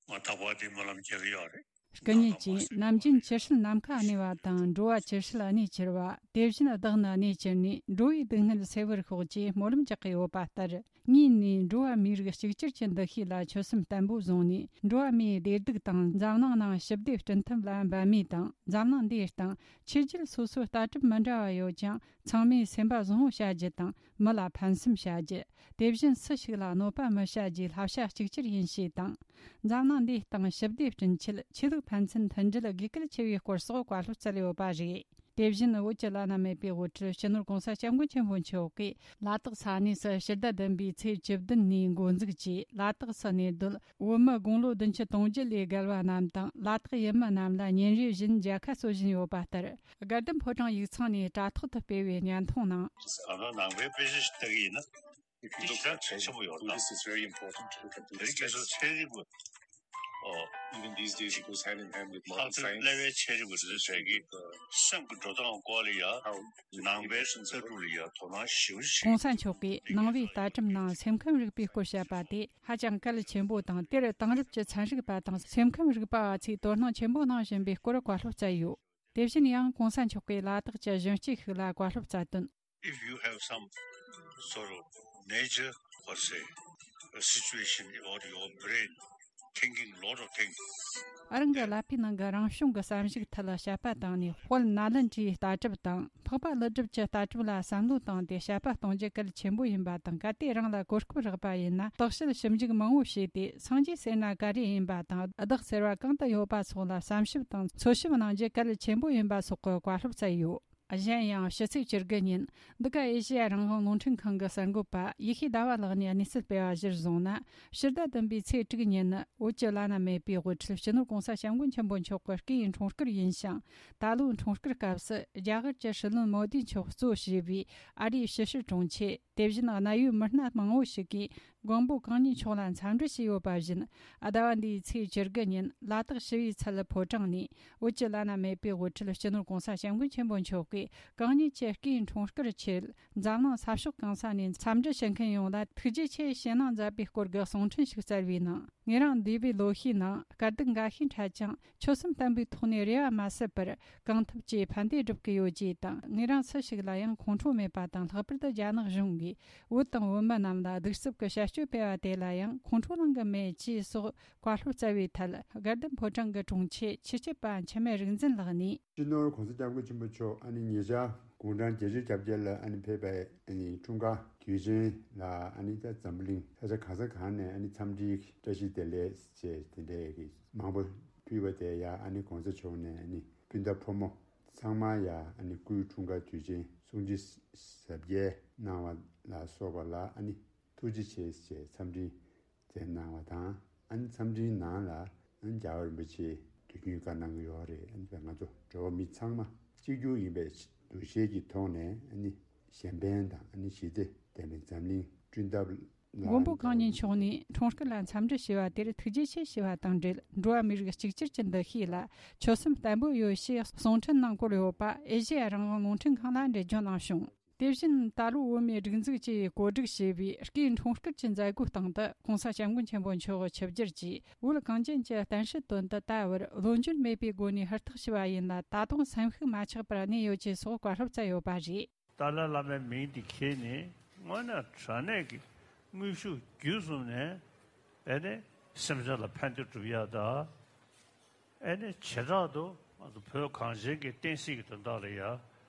ང་རྟག་པར་འདི་སྨོན་ལམ་རྒྱག་གི་ཡོད་རེད། སྐུ་ཉིད་ཀྱིས་ནམ་རྒྱུན་ཇི་སྲིད་ནམ་མཁའ་གནས་པ་དང་། འགྲོ་བ་ཇི་སྲིད་གནས་གྱུར་པ། དེ་བཞིན་བདག་ནི་གནས་གྱུར་ནས། འགྲོ་བའི་སྡུག་བསྔལ་སེལ་བར་ཤོག་ཅེས་སྨོན་ལམ་རྒྱག་གི་ཡོད་པ་ལྟར། ངས་ནི་འགྲོ་བ་མིའི་རིགས་གཅིག་གྱུར་གྱི་འདུ་ཤེས་ལ་ཆོད་སེམས་བརྟན་པོ་བཟུང་ནས། འགྲོ་བ་མིའི་བདེ་སྡུག་དང་། འཛམ་གླིང་ནང་ཞི་བདེ་བསྐྲུན་ཐབས་ལ་འབད་མུས་དང་། འཛམ་གླིང་འདིའི་སྟེང་ཆོས་བརྒྱུད་སོ་སོའི་ལྟ་གྲུབ་མི་འདྲ་བ་ཡོད་ཀྱང་། ཚང་མས་སེམས་པ་བཟང་བོ་བྱ་རྒྱུ་དང་། མི་ལ་ཕན་སེམས་བྱ་རྒྱུ། དེ་བཞིན་སུ་ཞིག་ལ་གནོད་པ་མི་བྱ་རྒྱུའི་བསླབ་བྱ་གཅིག་གྱུར་ཡིན་ཞེས་དང་། འཛམ་གླིང་འདིའི་སྟེང་ཞི་བདེ་བསྐྲུན་ཆེད་ཆོས་ལུགས་ཕན་ཚུན་མཐུན་སྒྲིལ་དགོས་གལ་ཆེ་བའི་སྐོར་སོགས་བཀའ་སློབ་སྩལ་ཡོད་པ་རེད། དེ་བཞིན་བོད་ཀྱི་བླ་ན་མེད་པའི་དབུ་ཁྲིད་སྤྱི་ནོར་༸གོང་ས་༸སྐྱབས་མགོན་ཆེན་པོ་མཆོག་གིས་ལ་དྭགས་ས་གནས་སུ་ཕྱི་ཟླ་བདུན་པའི་ཚེས་བཅུ་བདུན་ནས་འགོ་འཛུགས་ཀྱིས། ལ་དྭགས་སུ་གནས་སྡོད་བོད་མི་དགུང་ལོ་བདུན་ཅུ་དོན་བརྒྱད་ལས་བརྒལ་བ་རྣམས་དང་། ལ་དྭགས་ཡུལ་མི་རྣམས་ལ་ཉིན་རེ་བཞིན་མཇལ་ཁ་སྩོལ་བཞིན་ཡོད་པ་ལྟར། དགའ་ལྡན་ཕོ་བྲང་ཡིག་ཚང་ནས་དྲ་ཐོག་ཏུ་སྤེལ་བའི་བརྙན་ཐུང་ནང་། ཨ་ནི་ནང་པའི་དཔེ་ཆ་ཞིག་ལྟ་གི་ཡིན་ན། If you look at ཆེན་པོ་ཡོད་ན། Buddhist, it's very important to look at དེ་རིང་ཁ་སང་ཚན་རིག་པ། ཨོ། Even these days, it goes hand in hand with modern science. ལྷག་དོན་གླེ་བའི་ཚན་རིག་པ་དེ་ཚོས་ཀྱི་སེམས་ཀྱི་འགྲོ་སྟངས་སྐོར་ལ་ཡ། ནང་པའི་ལྟ་གྲུབ་ལ་ཡ་དོ་སྣང་ཞེ་པོ་ཞིག་གོང་ས་མཆོག་གིས་ནང་པའི་ལྟ་གྲུབ་ནང་སེམས་ཁམས་རིག་པའི་སྐོར་བཤད་པ་དེ་ཧ་ཅང་གལ་ཆེན་པོ་དང་། དེར་དེང་རབས་ཀྱི་ཚན་རིག་པ་དང་སེམས་ཁམས་རིག་པ་བ་ཚོས་དོ་སྣང་ཆེན་པོ་གནང་བཞིན་པའི་སྐོར་བཀའ་སློབ་སྩལ་ཡོད། དེ་བཞིན་ཡང་གོང་ས་མཆོག་གིས་ལ་དྭགས་ཀྱི་གཞོན་སྐྱེས་ཤིག་ལ་བཀའ་སློབ་སྩལ་དོན། If you have some sort of major, what say, a situation about your brain, thinking lot of things. རང་གི་ཀླད་པའི་ནང་གི་རང་བྱུང་གི་བསམ་གཞིག་ཐད་ལ་དཔྱད་པ་བཏང་ནས། དཔལ་ནཱ་ལེནྡྲའི་ལྟ་གྲུབ་དང་། འཕགས་པ་ཀླུ་སྒྲུབ་ཀྱི་ལྟ་གྲུབ་ལ་བསམ་བློ་བཏང་སྟེ་དཔྱད་པ་གཏོང་རྒྱུ་གལ་ཆེན་པོ་ཡིན་པ་དང་། གལ་ཏེ་རང་ལ་གོ་སྐབས་རག་པ་ཡིན་ན། བརྟག་དཔྱད་ཞིབ་འཇུག་མང་བོ་བྱས་ཏེ། སངས་རྒྱས་ཟེར་ན་ག་རེ་ཡིན་པ་དང་། བདག་ཟེར་བ་གང་དུ་ཡོད་པ་སོགས་ལ་བསམ་ཞིབ་དང་འཚོལ་ཞིབ་གནང་རྒྱུ་གལ་ཆེན་པོ་ཡིན་པ་སོགས་ཀྱི་བཀའ་སློབ་སྩལ་ཡོད། གཞན་ཡང་ཕྱི་ཚེས་བཅུ་དགུ་ཉིན་འདི་ག་ཨེ་ཤེ་ཡ་རང་དབང་རླུང་འཕྲིན་ཁང་གི་གསར་འགོད་པ་ཡེ་ཤེས་ཟླ་བ་ལགས་ནས་གནས་ཚུལ་སྤེལ་བ་གཞིར་བཟུང་ན། ཕྱི་ཟླ་བདུན་པའི་ཚེས་དྲུག་ཉིན་ནི་བོད་ཀྱི་བླ་ན་མེད་པའི་དབུ་ཁྲིད་སྤྱི་ནོར་༸གོང་ས་༸སྐྱབས་མགོན་ཆེན་པོ་མཆོག་གི་སྐུའི་འཁྲུངས་སྐར་ཡིན་ཞིང་། ད་ལོའི་འཁྲུངས་སྐར་སྐབས་སུ་རྒྱ་གར་གྱི་སྲིད་བློན་མོ་དི་མཆོག་གཙོ་བྱས་པའི་ཨ་རིའི་ཕྱི་སྲིད་དྲུང་ཆེ། དེ་བཞིན་གནད་ཡོད་མི་སྣ་མང་བོ་ཞིག་གིས་མགོན་པོ་གང་ཉིད་མཆོག་ལ་འཚམས་འདྲི་བྱས་ཡོད་པ་བཞིན། ཟླ་བ་འདིའི་ཚེས་བཅུ་དགུ་ཉིན་ལ་དྭགས་ཞི་བའི་ཚལ་ཕོ་བྲང་ནས་བོད་ཀྱི་བླ་ན་མེད་པའི་དབུ་ཁྲིད་སྤྱི་ནོར་༸གོང་ས་༸སྐྱབས་མགོན་ཆེན་པོ་མཆོག་གིས་གང་ཉིད་ཀྱི་སྐུའི་འཁྲུངས་སྐར་ཆེད་འཛམ་གླིང་ས་ཕྱོགས་གང་ས་ནས་འཚམས་འདྲི་བྱེད་མཁན་ཡོངས་ལ་ཐུགས་རྗེ་ཆེ་ཞུ་གནང་མཛད་པའི་སྐོར་གྱི་གསུང་འཕྲིན་ཞིག་སྩལ་བའི་ནང་། ངེད་རང་འདས་པའི་ལོ་ཤས་ནང་དཀའ་སྡུག་འགའ་ཤས་འཕྲད་ཀྱང་། ཆོད་སེམས་བརྟན་པོའི་ཐོག་ནས་རེ་བ་མ་ཟད་པར་གང་ཐུབ་ཀྱིས་ཕན་བདེ་སྒྲུབ་ཀྱི་ཡོད་ཅེས་དང་། ངེད་རང་སུ་ཞིག་ལ་ཡང་ཁོང་ཁྲོ་མེད་པ་དང་། ལྷག་པར་དུ་རྒྱ་ནག་གཞུང་གིས་བོད་དང་བོད་མི་རྣམས་ལ་གདུག་རྩུབ་ཀྱི་བྱ་སྤྱོད་སྤེལ་བ་དེ་ལ་ཡང་ཁོང་ཁྲོ་ལངས་ཀྱི་མེད་ཅེས་སོགས་བཀའ་སློབ་སྩལ་བའི་ཐད། དགའ་ལྡན་ཕོ་བྲང་གི་དྲུང་ཆེ་ཆོས་སྐྱིད་པ་འཆི་མེད་རིག་འཛིན་ལགས་ནས། སྤྱི་ནོར་༸གོང་ས་༸སྐྱབས་མགོན་ཆེན་པོ་མཆོག་ཨ་ནི་ཉེ་ཆར་དགུང་གྲངས་བརྒྱད་ཅུ་གྱ་བརྒྱད་ལ་ཨ་ནི་ཕེབས་པའི་ཨ་ནི་འཁྲུངས་སྐར་དུས་ཆེན་ལ་ཨ་ནི་ད་འཛམ་བུ་གླིང་ས་ཆ་གང་ས་གང་ནས་ཨ་ནི་འཚམས་འདྲིའི་བཀྲ་ཤིས་བདེ་ལེགས་བཅས་དེ་འདྲའི་གི་མང་པོ་ཕུལ་བ་དེ་ཡང་ཨ་ནི་༸གོང་ས་མཆོག་ནས་ཨ་ནི་སྤུན་ཟླ་ཕོ་མོ་ཚང་མ་ཡང་ཨ་ནི་སྐུའི་འཁྲུངས་སྐར་དུས་ཆེན་སྲུང་བརྩི་གཟབ་རྒྱས་གནང་བ་ལ་སོགས་པ་ལ་ཨ་ནི་ཐུགས་རྗེ་ཆེ་ཞེས་འཚམས་འདྲི་མཛད་གནང་བ་དང་། ཨ་ནི་འཚམས་འདྲིའི་ནང་ལ་ཨ་ནི་རྒྱལ་བ་རིན་པོ་ཆེས་དུས་རྒྱུན་བཀའ་གནང་གི་ཡོད་རེད། ཨ་ནི་ང་ཚོ་འགྲོ་བ་མི་ཚང་མ་གཅིག་གྱུར་ཡིན་པའི་འདུ་ཤེས་ཀྱི་ཐོག་ནས་ཨ་ནི་གཞན་ཕན་དང་ཨ་ནི་ཞི་བདེ་ལྡན་པའི་འཛམ་གླིང་བསྐྲུན་ཐབས་ལ། མགོན་པོ་གང་ཉིད་མཆོག་ནས་འཁྲུངས་སྐར་ལ་འཚམས་འདྲི་ཞུས་པ་དེར་ཐུགས་རྗེ་ཆེ་ཞུས་པ་དང་འབྲེལ། འགྲོ་བ་མིའི་རིགས་གཅིག་གྱུར་གྱི་འདུ་ཤེས་ལ་ཆོད་སེམས་བརྟན་པོ་ཡོད་ཞེས་གསུང་འཕྲིན་ནང་བཀོད་ཡོད་པ་ཨེ་ཤེ་ཡ་རང་དབང་རླུང་འཕྲིན་ཁང་ལ་འགྲེལ་བརྗོད་གནང་བྱུང་། དེ་བཞིན་ད་ལོ་བོད་མིའི་སྒྲིག་འཛུགས་ཀྱིས་གོ་སྒྲིག་བྱས་པའི་སྐུའི་འཁྲུངས་སྐར་གྱི་མཛད་སྒོའི་སྟེང་དུ་༸གོང་ས་༸སྐྱབས་མགོན་ཆེན་པོ་མཆོག་ཆིབས་བསྒྱུར་གྱིས་བོད་གངས་ཅན་གྱི་བསྟན་སྲིད་དོན་དུ་ད་བར་བློ་འགྱུར་མེད་པའི་སྒོ་ནས་ཧུར་ཐག་ཞུ་བ་ཡིན་ལ། ད་དུང་སེམས་ཤུགས་མ་ཆག་པར་གནས་ཡོད་ཅེས་སོགས་བཀའ་སློབ་སྩལ་ཡོད་པ་རེད། ཏཱ་ལའི་བླ་མའི་མིང་འདི་ཁྱེར་ནས་དངོས་གནས་དྲང་གནས་ཀྱི་དངོས་ཤུགས་བརྒྱུད་གསུམ་ནས་ཨེ་ནས་སེམས་ཅན་ལ་ཕན་བདེ་སྒྲུབ་ཡག་དང་། ཨེ་ནས་བྱེ་བྲག་ཏུ་ང་ཚོ་བོད་གངས་ཅན་གྱི་བསྟན་སྲིད་ཀྱི་དོན་དག་ལ་ཡ།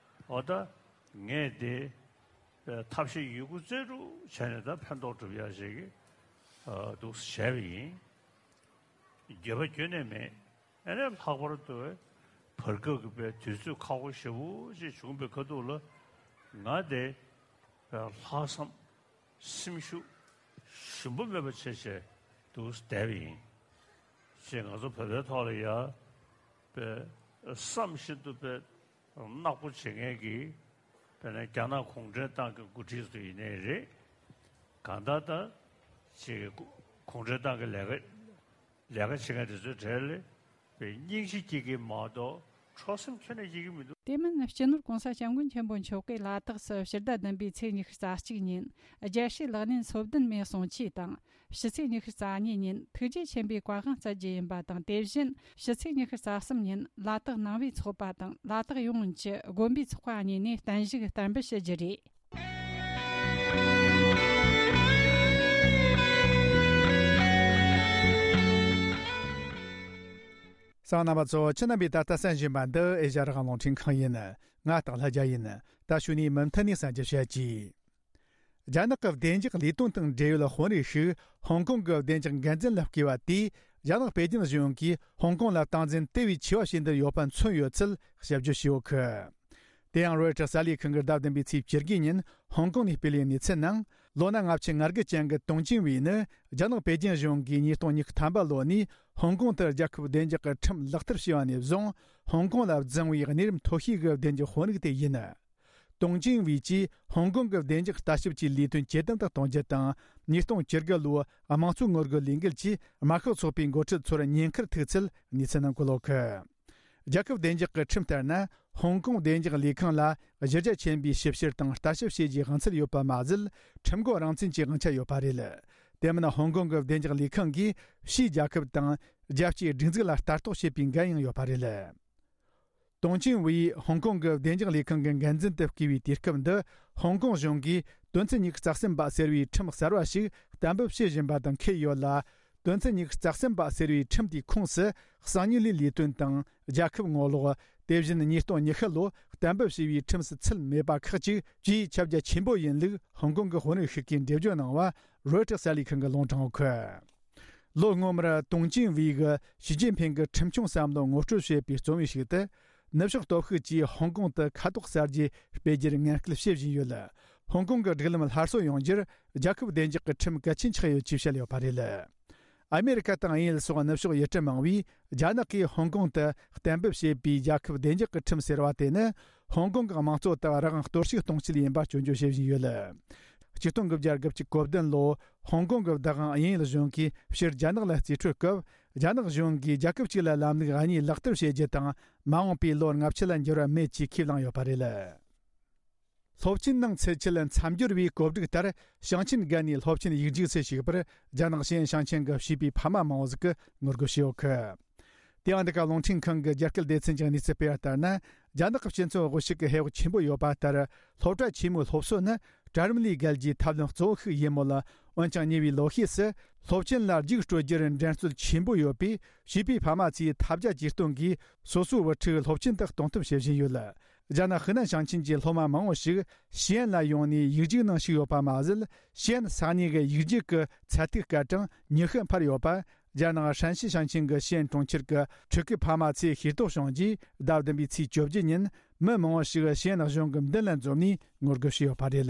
འོ་ད་ངས་དེ་ཐབས་ཤེས་ཡོད་རྒུ་རྩལ་སྤྲུགས་བྱས་ནས་ད་ཕན་ཐོགས་སྒྲུབ་ཡག་ཞིག་གི་འདུག་བྱས་པ་ཡིན། འགྱོད་པ་ཁྱོན་ནས་མེད། ཨེ་ནས་ལྷག་པར་དུ་བར་སྐབས་ཀྱི་པའི་དུས་ཚོད་ཁག་པོ་ཞེ་པོ་ཅིག་བྱུང་བའི་ཁ་ཐུག་ལ་ང་དེ་ལྷག་བསམ་ སེམས་ཤུགས་ཞུམ་པ་མེད་པ་བྱས་བྱས་འདུག་བསྡད་པ་ཡིན། ཅེས་ང་ཚོ་བོད་པའི་ཐོག་ལ་ཡ་དཔེ་བསམ་བཞིན་དུ་དཔེ་ནག་པོ་བྱེད་མཁན་གྱི་དཔེར་ན་རྒྱ་ནག་གུང་ཁྲན་ཏང་གི་འགོ་ཁྲིད་ཚོ་ཡིན་ནའི་རེད། གང་ལྟར་ད་ཅིག་གུང་ཁྲན་ཏང་གི་ལས་ཀ་ལས་ཀ་བྱེད་མཁན་དེ་ཚོའི་གྲས་ལ་དཔེ་སྙིང་རྗེ་སྐྱེ་གི་མ་གཏོགས་འཕྲོག་སེམས་ཁྱོན་ནས་སྐྱེ་གི་མི་འདུག། དེ་མིན་སྤྱི་ནོར་༸གོང་ས་༸སྐྱབས་མགོན་ཆེན་པོ་མཆོག་གིས་ལ་དྭགས་སུ་ཕྱི་ཟླ་བདུན་པའི་ཚེས་ཉི་ཤུ་རྩ་གཅིག་ཉིན་རྒྱལ་སྲས་ལག་ལེན་སོ་བདུན་མའི་གསུང་ཆོས་དང་། ཕྱི་ཚེས་ཉི་ཤུ་རྩ་གཉིས་ཉིན་ཐུགས་རྗེ་ཆེན་པོའི་བཀའ་དབང་སྩལ་རྒྱུ་ཡིན་པ་དང་། དེ་བཞིན་ཕྱི་ཚེས་ཉི་ཤུ་རྩ་གསུམ་ཉིན་ལ་དྭགས་ནང་པའི་ཚོགས་པ་དང་ལ་དྭགས་ཡོངས་ཀྱི་དགོན་པའི་ཚོགས་པ་གཉིས་ནས་བརྟན་བཞུགས་གཏན་འབེབས་ཞུ་རྒྱུ་རེད། གསན་མཁན་རྣམ་པ་ཚོ། ཁྱེད་རྣམ་པས་ད་ལྟ་གསན་བཞིན་པ་འདི་ཨེ་ཤ་ཡ་རང་དབང་རླུང་འཕྲིན་ཁང་ཡིན། ང་སྟག་ལྷ་རྒྱལ་ཡིན། ད་གཞུག་ནས་མུ་མཐུད་ནས་གསན་རྒྱུ་བྱེད་ཀྱིས། རྒྱ་ནག་གི་བདེ་འཇགས་ལས་དོན་དང་འབྲེལ་ཡོད་དཔོན་རིགས་ཤིག་ཧོང་ཀོང་གི་བདེ་འཇགས་འགན་འཛིན་ལ་བསྐོས་པ་དེས་རྒྱ་ནག་པེ་ཅིན་གཞུང་གིས་ཧོང་ཀོང་ལ་སྟངས་འཛིན་དེ་བས་ཆེ་བ་བྱེད་འདོད་ཡོད་པ་མཚོན་ཡོད་ཚུལ་ཞིབ་བརྗོད་བྱས་ཡོད་གི། དེ་ཡང་རོའི་ཊར་གསར་ལས་ཁང་གིས་ཟླ་བདུན་པའི་ཚེས་བཅུ་དགུ་ཉིན་ཧོང་ཀོང་ནས་སྤེལ་བའི་གནས་ཚུལ་ནང་། ལོ་ན་ལྔ་བཅུ་ང་དགུ་ཅན་གྱི་ཏུང་ཅིན་ཝེ་ནི་རྒྱ་ནག་པེ་ཅིན་གཞུང་གིས་ཉིས་སྟོང་ཉི་ཤུ་ཐམ་པ་ལོ་ནས་ཧོང་ཀོང་དུ་རྒྱལ་ཁབ་བདེ་འཇགས་ཀྱི་ཁྲིམས་ལག་བསྟར་བྱས་པ་ནས་བཟུང་ཧོང་ཀོང་ལ་བརྫངས་པའི་གནས་རིམ་མཐོ་ཤོས་ཀྱི་བདེ་འཇགས་དཔོན་རིགས་དེ་ཡིན། ཏུང་ཅིན་ཝེ་གྱིས་ཧོང་ཀོང་གི་བདེ་འཇགས་ལྟ་ཞིབ་ཀྱི་ལས་དོན་ཇེ་བརྟན་དུ་གཏོང་རྒྱུ་དང་། ཉིས་སྟོང་བཅུ་དགུ་ལོའི་དམངས་གཙོའི་ངོ་རྒོལ་ལས་འགུལ་གྱིས་དམར་ཤོག་ཚོགས་པའི་འགོ་ཁྲིད་ཚོར་ཉེན་ཁར་ཐུག་ཚུལ་གནས་ཚུལ་ནང་འཁོད་ཡོད་གི། རྒྱལ་ཁབ་བདེ་འཇགས་ཀྱི་ཁྲིམས་ལྟར་ན། ཧོང་ཀོང་བདེ་འཇགས་ལས་ཁང་ལ་གཞི་རྒྱ་ཆེན་པོའི་ཞིབ་བཤེར་དང་ལྟ་ཞིབ་བྱེད་རྒྱུའི་དབང་ཚད་ཡོད་པ་མ་ཟད། ཁྲིམས་འགོག་རང་བཙན་གྱི་དབང་ཆ་ཡོད་པ་རེད། དེ་མིན་ཧོང་ཀོང་གི་བདེ་འཇགས་ལས་ཁང་གིས་ཕྱིའི་རྒྱལ་ཁབ་དང་རྒྱལ་སྤྱིའི་སྒྲིག་འཛུགས་ལ་ལྟ་རྟོག་བྱེད་པའི་འགན་ཡང་ཡོད་པ་རེད། ཏུང་ཅིན་ཝེ་ཡིས་ཧོང་ཀོང་གི་བདེ་འཇགས་ལས་ཁང་གི་འགན་འཛིན་དུ་བསྐོས་པའི་དུས་སྐབས་འདི་ཧོང་ཀོང་གཞུང་གིས་དོན་ཚན་ཉི་ཤུ་རྩ་གསུམ་པ་ཟེར་བའི་ཁྲིམས་གསར་བ་ཞིག་གཏན་འབེབས་བྱེད་བཞིན་པ་དང་འཁེལ་ཡོད་ལ། དོན་ཚན་ཉི་ཤུ་རྩ་གསུམ་པ་ཟེར་བའི་ཁྲིམས་དེའི་ཁོངས་སུ་གསང་མྱུལ་ལས་ལས་དོན་དང་རྒྱལ་ཁབ་ངོ་ལོག་དེ་བཞིན་ཉིས་སྟོང་ཉི་ཤུ་ལོ་གཏན་འབེབས་བྱས་པའི་ཁྲིམས་སུ་ཚུད་མེད་པ་ཁག་ཅིག་ཇེ་ཁྱབ་རྒྱ་ཆེན་པོ་ཡིན་ལུགས་ཧོང་ཀོང་གི་དཔོན་རིགས་ཤིག་གིས་འགྲེལ་བརྗོད་གནང་བ་རོའི་ཊར་གསར་ལས་ཁང་གིས་ལུང་དྲངས་ཡོད་གི། ལོ་སྔོན་མར་ཏུང་ཅིན་ཝེ་གིས་ཞི་ཅིན་ཕིང་གི་ཁྲིམས་སྐྱོང་བསམ་བློ་ངོ་སྤྲོད་བྱས་པའི་རྩོམ་ཡིག་ཞིག་ཏུ། ནུབ་ཕྱོགས་སྟོབས་ཤུགས་ཀྱིས་ཧོང་ཀོང་དུ་ཁ་དོག་གསར་བརྗེ་སྤེལ་རྒྱུར་ངན་སྐུལ་བྱེད་བཞིན་ཡོད། ཧོང་ཀོང་གི་སྒྲིག་ལམ་སླར་གསོ་ཡོང་རྒྱུར་རྒྱལ་ཁབ་བདེ་འཇགས་ཀྱི་ཁྲིམས་གལ་ཆེན་ཆགས་ཡོད་ཅེས་བཤད་ཡོད་པ་རེད། ཨ་མེ་རི་ཁ་དང་དབྱིན་ཡུལ་སོགས་ནུབ་ཕྱོགས་ཡུལ་གྲུ་མང་བས་རྒྱ་ནག་གིས་ཧོང་ཀོང་དུ་གཏན་འབེབས་བྱས་པའི་རྒྱལ་ཁབ་བདེ་འཇགས་ཀྱི་ཁྲིམས་ཟེར་བ་དེ་ནི་ཧོང་ཀོང་གི་དམངས་གཙོ་དག་རང་དབང་གཏོར་བཤིག་གཏོང་ཆེད་ཡིན་པ་སྐྱོན་བརྗོད་བྱེད་བཞིན་ཡོད། ཆིག་སྟོང་དགུ་བརྒྱ་དགུ་བཅུ་གོ་བདུན་ལོ་ཧོང་ཀོང་གི་བདག་དབང་དབྱིན་ཡུལ་གཞུང་གིས་ཕྱིར་རྒྱ་ནག་ལ་རྩིས་སྤྲོད་སྐབས། རྒྱ་ནག་གཞུང་གིས་རྒྱལ་ཁབ་གཅིག་ལ་ལམ་ལུགས་གཉིས་ལག་བསྟར་བྱེད་རྒྱུ་དང་མ་འོངས་པའི་ལོ་ལྔ་བཅུ་ལ་འགྱུར་བ་མེད་ཅེས་ཁས་བླངས་ཡོད་པ་རེད། སློབ་ཆེན་ནང་ཚུད་ཆེད་མཚམས་སྦྱོར་བའི་གོ་སྒྲིག་ལྟར་ཞིང་ཆེན་བརྒལ་ནས་སློབ་ཆེན་ཡིག་རྒྱུགས་སུ་ཞུགས་པར་རྒྱ་ནག་ཞི་ཨན་ཞིང་ཆེན་གྱི་བྱིས་པའི་ཕ་མ་མང་བོ་ཞིག་གིས་ངོ་རྒོལ་བྱས་ཡོད་གི། དེ་ཡང་འདི་ག་རླུང་འཕྲིན་ཁང་གི་རྒྱ་སྐད་སྡེ་ཚན་གྱི་གནས་ཚུལ་སྤེལ་བ་ལྟར་ན། རྒྱ་ནག་གི་སྤྱི་ཚོགས་དབུ་ཞུགས་ཀྱི་ཧེ་བག་ཆེན་པོ་ཡོད་པ་ལྟར། སློབ་གྲྭ་ཆེན་མོའི་སློབ་གསོ་ནི་གྲལ་རིམ་ལས་བརྒལ་རྒྱུའི་ཐབས་ལམ་གཙོ་བོ་ཞིག་ཡིན་མོད། འོན་ཀྱང་ཉེ་བའི་ལོ་ཤས་སུ་སློབ་ཆེན་ལ་རྒྱུགས་སྤྲོད་རྒྱུར་འགྲན་རྩོད་ཆེན་པོ་ཡོད་པས། བྱིས་པའི་ཕ་མ་ཚོས་ཐབས་བརྒྱ་ཇུས་སྟོང་གིས་སོ་སོའི་བུ་ཕྲུག་སློབ་ཆེན་དུ་གཏོང་ཐབས་བྱེད་བཞིན་ཡོད། རྒྱ་ནག་ཧི་ནན་ཞིང་ཆེན་གྱི་སློབ་མ་མང་བོ་ཞིག་ཞི་ཨན་ལ་ཡོང་ནས་ཡིག་རྒྱུགས་ནང་ཞུགས་ཡོད་པ་མ་ཟད། ཞི་ཨན་ས་གནས་ཀྱི་ཡིག་རྒྱུགས་ཀྱི་ཚད་ཐིག་སྐར་གྲངས་ཉི་ཤུ་འཕར་ཡོད་པ། རྒྱ་ནག་ཧྲན་ཞི་ཞིང་ཆེན་གྱི་ཞི་ཨན་གྲོང་ཁྱེར་གྱི་ཕྲུ་གུའི་ཕ་མ་ཚོས་ཤེས་རྟོགས་བྱུང་རྗེས། ཟླ་བདུན་པའི་ཚེས་བཅོ་བརྒྱད་ཉིན་མི་མང་བོ་ཞིག་ཞི་ཨན་གཞུང་གི་མདུན་ལ་འཛོམས་ནས་ངོ་རྒོལ་བྱས་ཡོད་པ་རེད།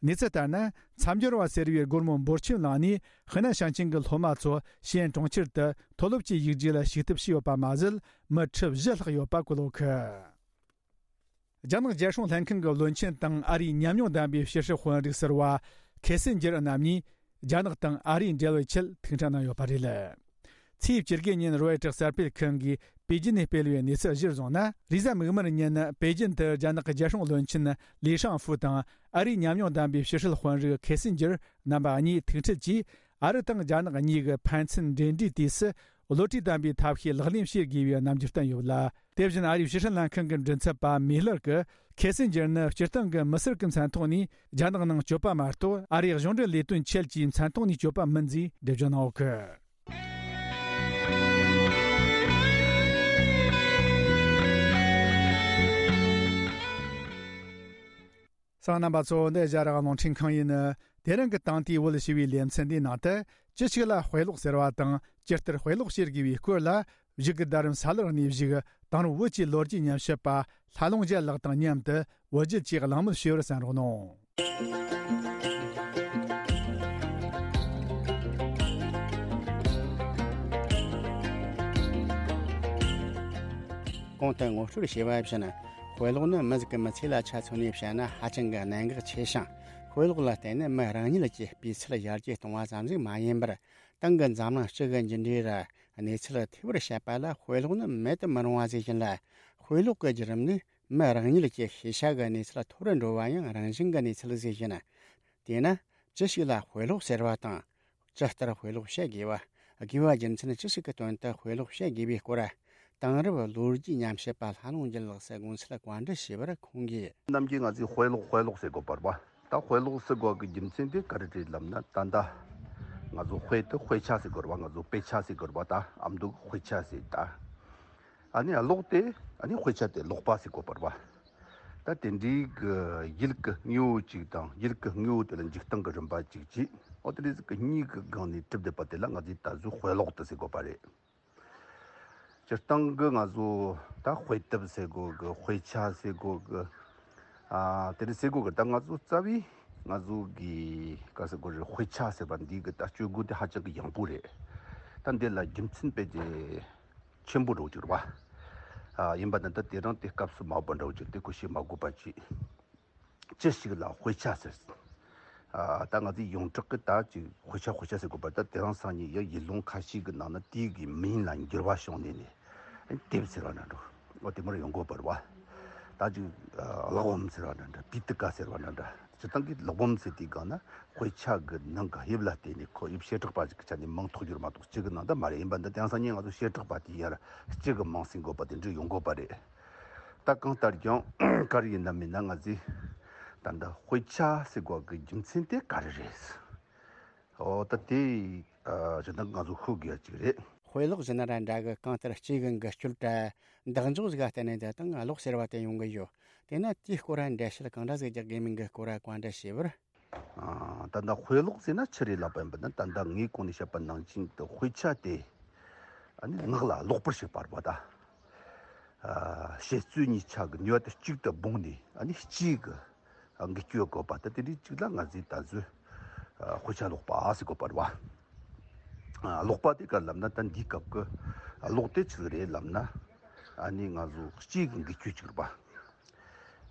གནས་ཚུལ་ལྟར་ན། མཚམས་སྦྱོར་བ་ཟེར་བའི་སྒོར་མོ་འབོར་ཆེན་བླངས་ནས་ཧི་ནན་ཞིང་ཆེན་གྱི་སློབ་མ་ཚོ་ཞི་ཨན་གྲོང་ཁྱེར་དུ་མཐོ་སློབ་ཀྱི་ཡིག་རྒྱུགས་ལ་ཞུགས་ཐབས་བྱས་ཡོད་པ་མ་ཟད། མི་ཁྲི་བཞི་ལྷག་ཡོད་པ་བཀོད་ཡོད་གི། རྒྱ་ནག་རྒྱལ་སྲུང་ལྷན་ཁང་གི་བློན་ཆེན་དང་ཨ་རིའི་ཉམས་མྱོང་ལྡན་པའི་ཕྱི་སྲིད་དཔོན་རིགས་ཟུར་པ་ཁེ་སིན་ཇེར་རྣམ་གཉིས་རྒྱ་ནག་དང་ཨ་རིའི་འབྲེལ་བའི་ཆེད་ཐུག་འཕྲད་གནང་ཡོད་པ་རེད། ཚེས་བཅུ་དགུ་ཉིན་རོའི་ཊར་གསར་སྤེལ་ཁང་གིས་པེ་ཅིན་ནས་སྤེལ་བའི་གནས་ཚུལ་གཞིར་བཟུང་ན། རེས་གཟའ་མིག་དམར་ཉིན་པེ་ཅིན་དུ་རྒྱ་ནག་གི་རྒྱལ་སྲུང་བློན་ཆེན་ལི་ཧྲང་ཧྥུ་དང་ཨ་རིའི་ཉམས་མྱོང་ལྡན་པའི་ཕྱི་སྲིད་དཔོན་རིགས་ཁེ་སིན་ཇེར་རྣམ་པ་གཉིས་ཐུག་འཕྲད་ཀྱིས། ཨ་རི་དང་རྒྱ་ནག་གཉིས་ཀྱི་ཕན་ཚུན་འབྲེལ་འདྲིས་དུས་སུ་བློ་གྲོས་ལྡན་པའི་ཐབས་ཤེས་ལག་ལེན་བྱེད་དགོས་པའི་རྣམ་འགྱུར་བསྟན་ཡོད་ལ། དེ་བཞིན་ཨ་རིའི་ཕྱི་སྲིད་ལྷན་ཁང་གི་མགྲིན་ཚབ་པ་མི་ལར་གྱིས་ཁེ་སིན་ཇེར་ནི་སྤྱིར་བཏང་གི་མི་སེར་གྱི་མཚན་ཐོག་ནས་རྒྱ་ནག་ནང་སྐྱོད་པ་མ་གཏོགས། ཨ་རིའི་གཞུང་འབྲེལ་ལས་དོན་ཆེད་ཀྱི་མཚན་ཐོག་ནས་སྐྱོད་པ་མིན་ཞེས་འགྲེལ་བརྗོད་གནང་ཡོད་གི། གསན་མཁན་རྣམ་པ་ཚོ། འདི་ཨེ་ཤ་ཡ་རང་དབང་རླུང་འཕྲིན་ཁང་ཡིན། དེ་རིང་གི་དེང་དུས་བོད་ཞི་བའི་ལེ་ཚན་འདིའི་ནང་དུ། ཅི་ཞིག་ལ་དཔེ་ཀློག་ཟེར་བ་དང་། ཇི་ལྟར་དཔེ་ཀློག་བྱེད་དགོས་པའི་སྐོར་ལ། གཞུག་གི་ཟླ་རིམ་ས་ལར་གནས་བཞུགས་དེང་རབས་བོད་ཀྱི་ལོ་རྒྱུས་ཉམས་ཞིབ་པ་ལྷ་ལུང་རྒྱལ་ལགས་དང་མཉམ་དུ་བོད་བརྒྱུད་ཀྱི་གླེང་མོལ་ཞུ་བར་གསན་རོགས་གནང་། གོང་དུ་ངོ་སྤྲོད་བྱས་པ་བཞིན། དཔེ་ཀློག་ནི་མི་ཟིག་གི་མི་ཚེ་ལ་ཆ་མཚོན་ནས་བཤད་ན་ཧ་ཅང་གི་གནད་འགག་ཆེ་ཞིང་། དཔེ་ཀློག་ལ་བརྟེན་ནས་མི་རང་ཉིད་ཀྱི་སྤུས་ཚད་ཡར་རྒྱས་གཏོང་བ་ཙམ་ཞིག་མ་ཡིན་པར། ཏང་གི་འཛམ་གླིང་སྤྱི་གི་མཇུག་འབྲས་ར་གནས་ཚུལ་ཐེ་བར་བཤད་པ་ལ་དཔེ་ཀློག་ནི་མེད་དུ་མི་རུང་བ་ཟེར་བཞིན་ལ། དཔེ་ཀློག་གི་བརྒྱུད་རིམ་ནི་མི་རང་ཉིད་ཀྱི་ཤེས་བྱ་གི་གནས་ཚད་མཐོ་རུ་འགྲོ་བ་ཡང་རང་བཞིན་གྱི་གནས་ཚུལ་ཟེར་བཞིན། དེས་ན་ཅི་ཞིག་ལ་དཔེ་ཀློག་ཟེར་བ་དང་། ཇི་ལྟར་དཔེ་ཀློག་བྱེད་དགོས་པ། དགོས་པ་རྒྱུ་མཚན་ཅི་ཞིག་གི་དོན་དུ་དཔེ་ཀློག་བྱེད་དགོས་པའི་སྐོར། དེང་རབས་ལོ་རྒྱུས་ཉམས་ཞིབ་པ་ལྷ་ལུང་རྒྱལ་ལགས་སུ་དགོངས་ཚུལ་བཀའ་འདྲི་ཞུས་པར་ཁོང་གིས། ནམ་རྒྱུན་ང་ཚོས་དཔེ་ཀློག་དཔེ་ཀློག་ཟེར་དགོས་པ་རེད་པ། ད་དཔེ་ཀློག་ཟེར་དགོས་ཀྱི་རྒྱུ་མཚན་དེ་ག་རེ་རེད་ལབ་ན། ད་ལྟ་ང་ཚོ་དཔེ་དེ་དཔེ་ཆ་ཟེར་དགོས་རེད་པ། ང་ཚོ་དཔེ་ཆ་ཟེར་དགོས་རེད་པ། ད་ཨ་མདོ་གི་དཔེ་ཆ་ཟེར། ད་ཨ་ནི་ཀློག་དེ་ཨ་ནི་དཔེ་ཆ་དེ་ཀློག་པ་ཟེར་དགོས་པ་རེད་པ། ད་དེ་འདྲའི་གི་ཡུལ་གི་དངོས་པོ་གཅིག་དང་། ཡུལ་གི་དངོས་པོ་དེ་ལ་འཇིག་སྟངས་ཀྱི་རིམ་པ་གཅིག་བྱས། འོ་དེ་འདྲ་ཟིག་གི་གཉིས་ཀྱི་སྒང་ནས་གྲུབ་བསྡད་པ་དེ་ལ་ང་ཚོས་ད་གཟོད་དཔེ་ཀློག་ཏུ་ཟེར་དགོས་པ་རེད། སྤྱིར་བཏང་གི་ང་ཚོ་ད་དཔེ་དེབ་ཟེར་དགོས་གི། དཔེ་ཆ་ཟེར་དགོས་གི། ཨ་དེ་འདྲ་ཟེར་དགོས་གི། ད་ང་ཚོ་རྩ་བའི་ང་ཚོ་གི་ག་ཟེར་དགོས་རེད། དཔེ་ཆ་ཟེར་བ་འདི་གི་ད་སྤྱོད་སྒོ་དེ་ཧ་ཅང་གི་ཡང་པོ་རེད། ད་འདི་ལ་རྒྱུ་མཚན་དཔེ་དེ་ཆེན་པོ་འདྲ་བོ་ཅིག་རེད་པ། ཨ་ཡིན་པ་ན་ད་དེ་རིང་དེ་སྐབས་སུ་མ་བབ་པ་འདྲ་བོ་ཅིག་དེ་ཁོ་བཤད་མ་དགོས་པ་ཅིག་ཅི་ཞིག་ལ་དཔེ་ཆ་ཟེར། ཨ་ད་ང་ཚོས་ཡོངས་གྲགས་ཀྱི་ད་ཅིག་དཔེ་ཆ་དཔེ་ཆ་ཟེར་དགོས་པ། ད་དེ་རིང་སང་ཉིན་ཡང་ཡུལ་ལུང་ཁ་ཤས་ཀྱི་ནང་ན་དེའི་གི་མིང་ལ་འགྱུར་བ་བྱུང་ནས་ནས་དེབ་ཟེར་བ་འདྲ་འདྲ། འོ་དེ་མར་ཡོང་དགོས་པ་རེད་པ། ད་ཅིག་ཨ་གླེགས་བམ་ཟེར་བ་འདྲ་འདྲ། པི་ཏི་ཀ་ཟེར་བ་འདྲ་འདྲ། སྤྱིར་བཏང་གི་གླེགས་བམ་ཟེར་དུས་སྒང་ན་དཔེ་ཆ་གི་ནང་གི་དབྱིབས་ལ་བརྟེན་ནས་ཁོ་དབྱིབས་བྱེ་བྲག་པ་ཞིག་གི་ཆ་ནས་མིང་ཐོགས་རྒྱུ་རེད་མ་གཏོགས་གཅིག་གི་ནང་ད་མ་རེད། ཡིན་པ་འདི་དེང་སང་ཉིན་ང་ཚོ་བྱེ་བྲག་པ་དེ་ཡར་གཅིག་གི་མིང་ཟིན་དགོས་པ་དེ་འདྲ་ཡོང་དགོས་པ་རེད། ད་གང་ལྟར་ཀྱང་ག་རེ་ཡིན་ན་མིན་ན་ང་ཚོས་ད་ལྟ་དཔེ་ཆ་ཟེར་དགོས་ཀྱི་རྒྱུ་མཚན་དེ་ག་རེ་རེད། འོ་ད་དེ་ཨ་ཇི་ལྟར་ང་ཚོ་ཤོད་དགོས་ཡ་གཅིག་རེད། དཔེ་ཀློག་ཟེར་ན་ར་འདྲ་གི། གང་ལྟར་སྐྱེས་གི་འགུལ་སྐྱོད་དྲ་འདེགས་འཇོག་ཟིག་ག་བརྟེན་ནས་འདི་དང་ཀློག་ཟེར་བ་དེ་ཡོང་གི་ཡོད། དེས་ན་དེའི་སྐོར་འགྲེལ་བཤད་གང་འདྲ་ཟིག་རྒྱག་དགོས་མིན་གི་སྐོར་བཀའ་འདྲི་ཞུས་པར། ཨ་ད་ལྟ་དཔེ་ཀློག་ཟེར་ན་ཆི་རེད་ལབ་པ་ཡིན་པ་ན། ད་ལྟ་ངས་གོང་ནས་བཤད་པ་ནང་བཞིན་དུ་དཔེ་ཆ་དེ་ཨ་ནི་ངག་ལ་ཀློག་པར་བྱེད་པ་རེད་པ། ད་ཨ་བཤད་རྩོལ་གཉིས་ཆ་གི་ནུས་པ་དེ་གཅིག་ཏུ་སྦངས་ནས་ཨ་ནི་ལྕེ་གི་འགུལ་སྐྱོད་དགོས་པ། ད་དེ་འདྲའི་གཅིག་ལ་ང་ཚོས་ད་གཟོད་ཨ་དཔེ་ཆ་ཀློག་པ་ཟེར་དགོས་པ་རེད་པ། ཨ་ཀློག་པ་དེ་ག་ལབ་ན་ད་འདིའི་སྐབས་ཀྱི་ཀློག་དེ་ཆི་ཟིག་རེད་ལབ་ན། ཨ་ནི་ང་ཚོ་ལྕེ་གི་འགུལ་སྐྱོད་ཅིག་རེད་པ།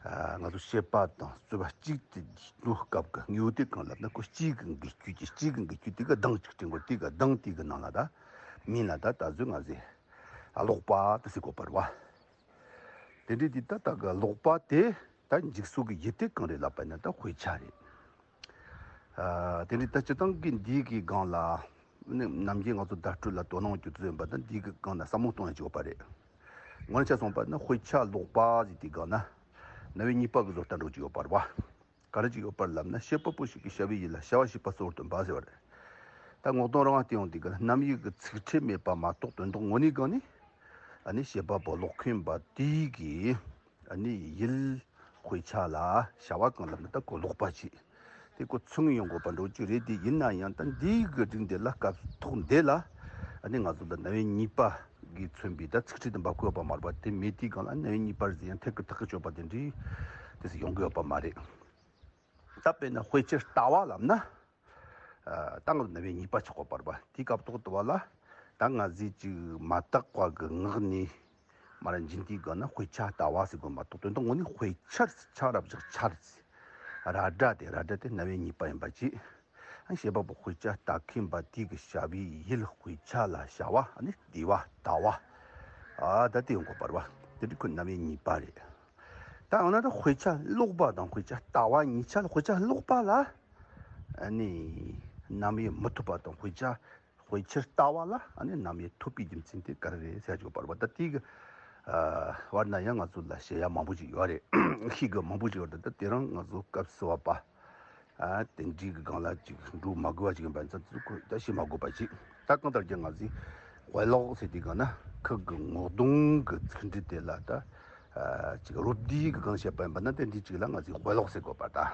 ཨ་ང་ཚོ་བཤད་པ་དང་རྩོད་པ་གཅིག་ཏུ་འགྲོ་སྐབས་ཀྱི་དངོས་དེ་གང་ལབ་ན། ཁོ་ལྕེ་གི་འགུལ་སྐྱོད་ཀྱི། ལྕེ་གི་འགུལ་སྐྱོད་དེ་གི་གདངས་ཅིག་དྲན་དགོས། དེ་གི་གདངས་དེ་གི་ནང་ལ་ད་མིང་ལ་ད་ད་གཟོད་ང་ཚོས་ཀློག་པ་དེ་ཟེར་དགོས་པ་རེད་པ། དེ་འདྲའི་དེ་ད་ད་གི་ཀློག་པ་དེ་ད་འཇུག་ས་གི་ཡུལ་དེ་གང་རེད་ལབ་པ་ན་ད་དཔེ་ཆ་རེད། ཨ་དེ་འདྲའི་ད་སྤྱིར་བཏང་གི་འདི་གི་སྒང་ལ་ནི་ནམ་རྒྱུན་ང་ཚོ་བརྡ་སྤྲོད་ལ་དོ་སྣང་རྒྱུ་ཚོད་ཡིན་པ་དང་། འདི་གི་སྒང་ལ་བསམ་བློ་གཏོང་ཡ་ཅིག་ཡོད་པ་རེད། དངོས་གནས་ཆ་མཚོན་པ་ན་དཔེ་ཆ་ཀློག་པ་ཟེར་དུས་སྒང་ན་རྣམ་དབྱེ་གཉིས་པ་གི་བཟོ་ལྟ་འདྲ་བོ་ཅིག་ཡོད་པ་རེད་པ། ག་རེ་ཅིག་ཡོད་པ་རེད་ལབ་ན། བྱེད་པ་པོ་ཞིག་གིས་བྱ་བའི་ཡུལ་ལ་བྱ་བ་བྱེད་པ་གཙོ་བོར་སྟོན་པ་ཟེར་བ་རེད། ད་ངོ་གདོང་རང་བལྟས་ཡོང་དུས་སྒང་ན་རྣམ་དབྱེ་གི་ཚིག་ཕྲད་མེད་པ་མ་གཏོགས་དོན་དག་དངོས་གནས་སྒང་ནས་ཨ་ནི་བྱེད་པ་པོ་ཀློག་མཁན་པ་དེ་གིས་ཨ་ནི་ཡུལ་དཔེ་ཆ་ལ་བྱ་བ་གང་ལབ་ན་ད་ཁོ་ཀློག་པ་བྱེད། དེ་ཁོ་ཚུར་ངོས་ཡོང་དགོས་པ་འདྲ་བོ་ཅིག་རེད། དེ་ཡིན་ན་ཡང་ད་འདིའི་གི་སྒྲིག་འདི་ལ་སྐབས་ཐོག་འདི་ལ་ཨ་ནི་ང་ཚོ་ལ་རྣམ་དབྱེ་གཉིས་པ་གིས་མཚོན་པའི་ད་ཚིག་ཕྲད་དེ་འབབ་ཀྱི་ཡོད་པ་མ་རེད་པ། དེ་མེད་དུས་སྒང་ལ་རྣམ་དབྱེ་གཉིས་པ་ཟེར་ཡང་ཐད་ཀར་ཐག་གིས་ཆོད་པ་དེ་འདྲའི་དེ་ཟེར་ཡོང་གི་ཡོད་པ་མ་རེད། ད་དཔེར་ན་དཔེ་ཆའི་ལྟ་བ་ལབ་ན། ཨ་ད་ང་ཚོ་རྣམ་དབྱེ་གཉིས་པ་ཆགས་ཀྱི་ཡོད་པ་རེད་པ། དེའི་སྐབས་ཐོག་དུ་བ་ལ་ད་ང་ཚོས་ཅིག་མ་དག་པ་གི་ངག་ནས་མར་འབྱིན་དུས་སྒང་ན་དཔེ་ཆ་ལྟ་བ་ཟེར་དགོས་མ་གཏོགས་དོན་དག་དངོས་གནས་དཔེ་ཆར་ཆ་ར་བཞག་ཆར་ཟེར། ར་སྒྲ་དེ་ར་སྒྲ་དེ་རྣམ་དབྱེ་གཉིས་པ་ཡིན་པ་བྱས། ཨ་བྱེད་པ་པོ་དཔེ་ཆ་ལྟ་མཁན་པ་དེ་གི་བྱ་བའི་ཡུལ་དཔེ་ཆ་ལ་བྱ་བ། ཨ་ནི་བསྡུས་པ་ལྟ་བ། ཨ་ད་དེ་ཡོང་དགོས་པ་རེད་པ། དེ་འདྲའི་ཁོ་རྣམ་དབྱེ་གཉིས་པ་རེད། ད་འོ་ན་ད་དཔེ་ཆ་ཀློག་པ་དང་དཔེ་ཆ་ལྟ་བ་གཉིས་ཆ་ལ། དཔེ་ཆ་ཀློག་པ་ལ་ཨ་ནི་རྣམ་དབྱེ་མི་ཐོབ་པ་དང་། དཔེ་ཆ་དཔེ་ཆར་ལྟ་བ་ལ་ཨ་ནི་རྣམ་དབྱེ་ཐོབ་པའི་རྒྱུ་མཚན་དེ་ག་རེ་རེད་ཟེར་ཡ་ཅིག་ཡོད་པ་རེད་པ། ད་དེ་གི་ཨ་བར་ན་ཡང་ང་ཚོ་ལ་བཤད་ཡ་མང་པོ་ཅིག་ཡོད་རེད། ཤེས་དགོས་མང་པོ་ཅིག་ཡོད་རེད། ད་དེ་རིང་ང་ཚོ་སྐབས་སུ་བབ་པ། ཨ་དེ་འདྲའི་གི་སྒང་ལ་ཅིག་འགྲོ་མ་དགོས་པ་ཅིག་ཡིན་པ་ཚོ་ཚོ་ཁོ་ད་བཤད་མ་དགོས་པ་ཅིག་ད་གང་ལྟར་ཀྱང་ང་ཚོས་དཔེ་ཀློག་ཟེར་དུས་སྒང་ན་ཁོ་གི་ངོ་གདོང་གི་ཚིག་འབྲུ་དེ་ལ་ད་ཨ་ཅིག་རོབ་བསྡུས་གི་སྒང་བཤད་པ་ཡིན་པ་ན། དེ་འདྲའི་ཅིག་ལ་ང་ཚོས་དཔེ་ཀློག་ཟེར་དགོས་པ་ད།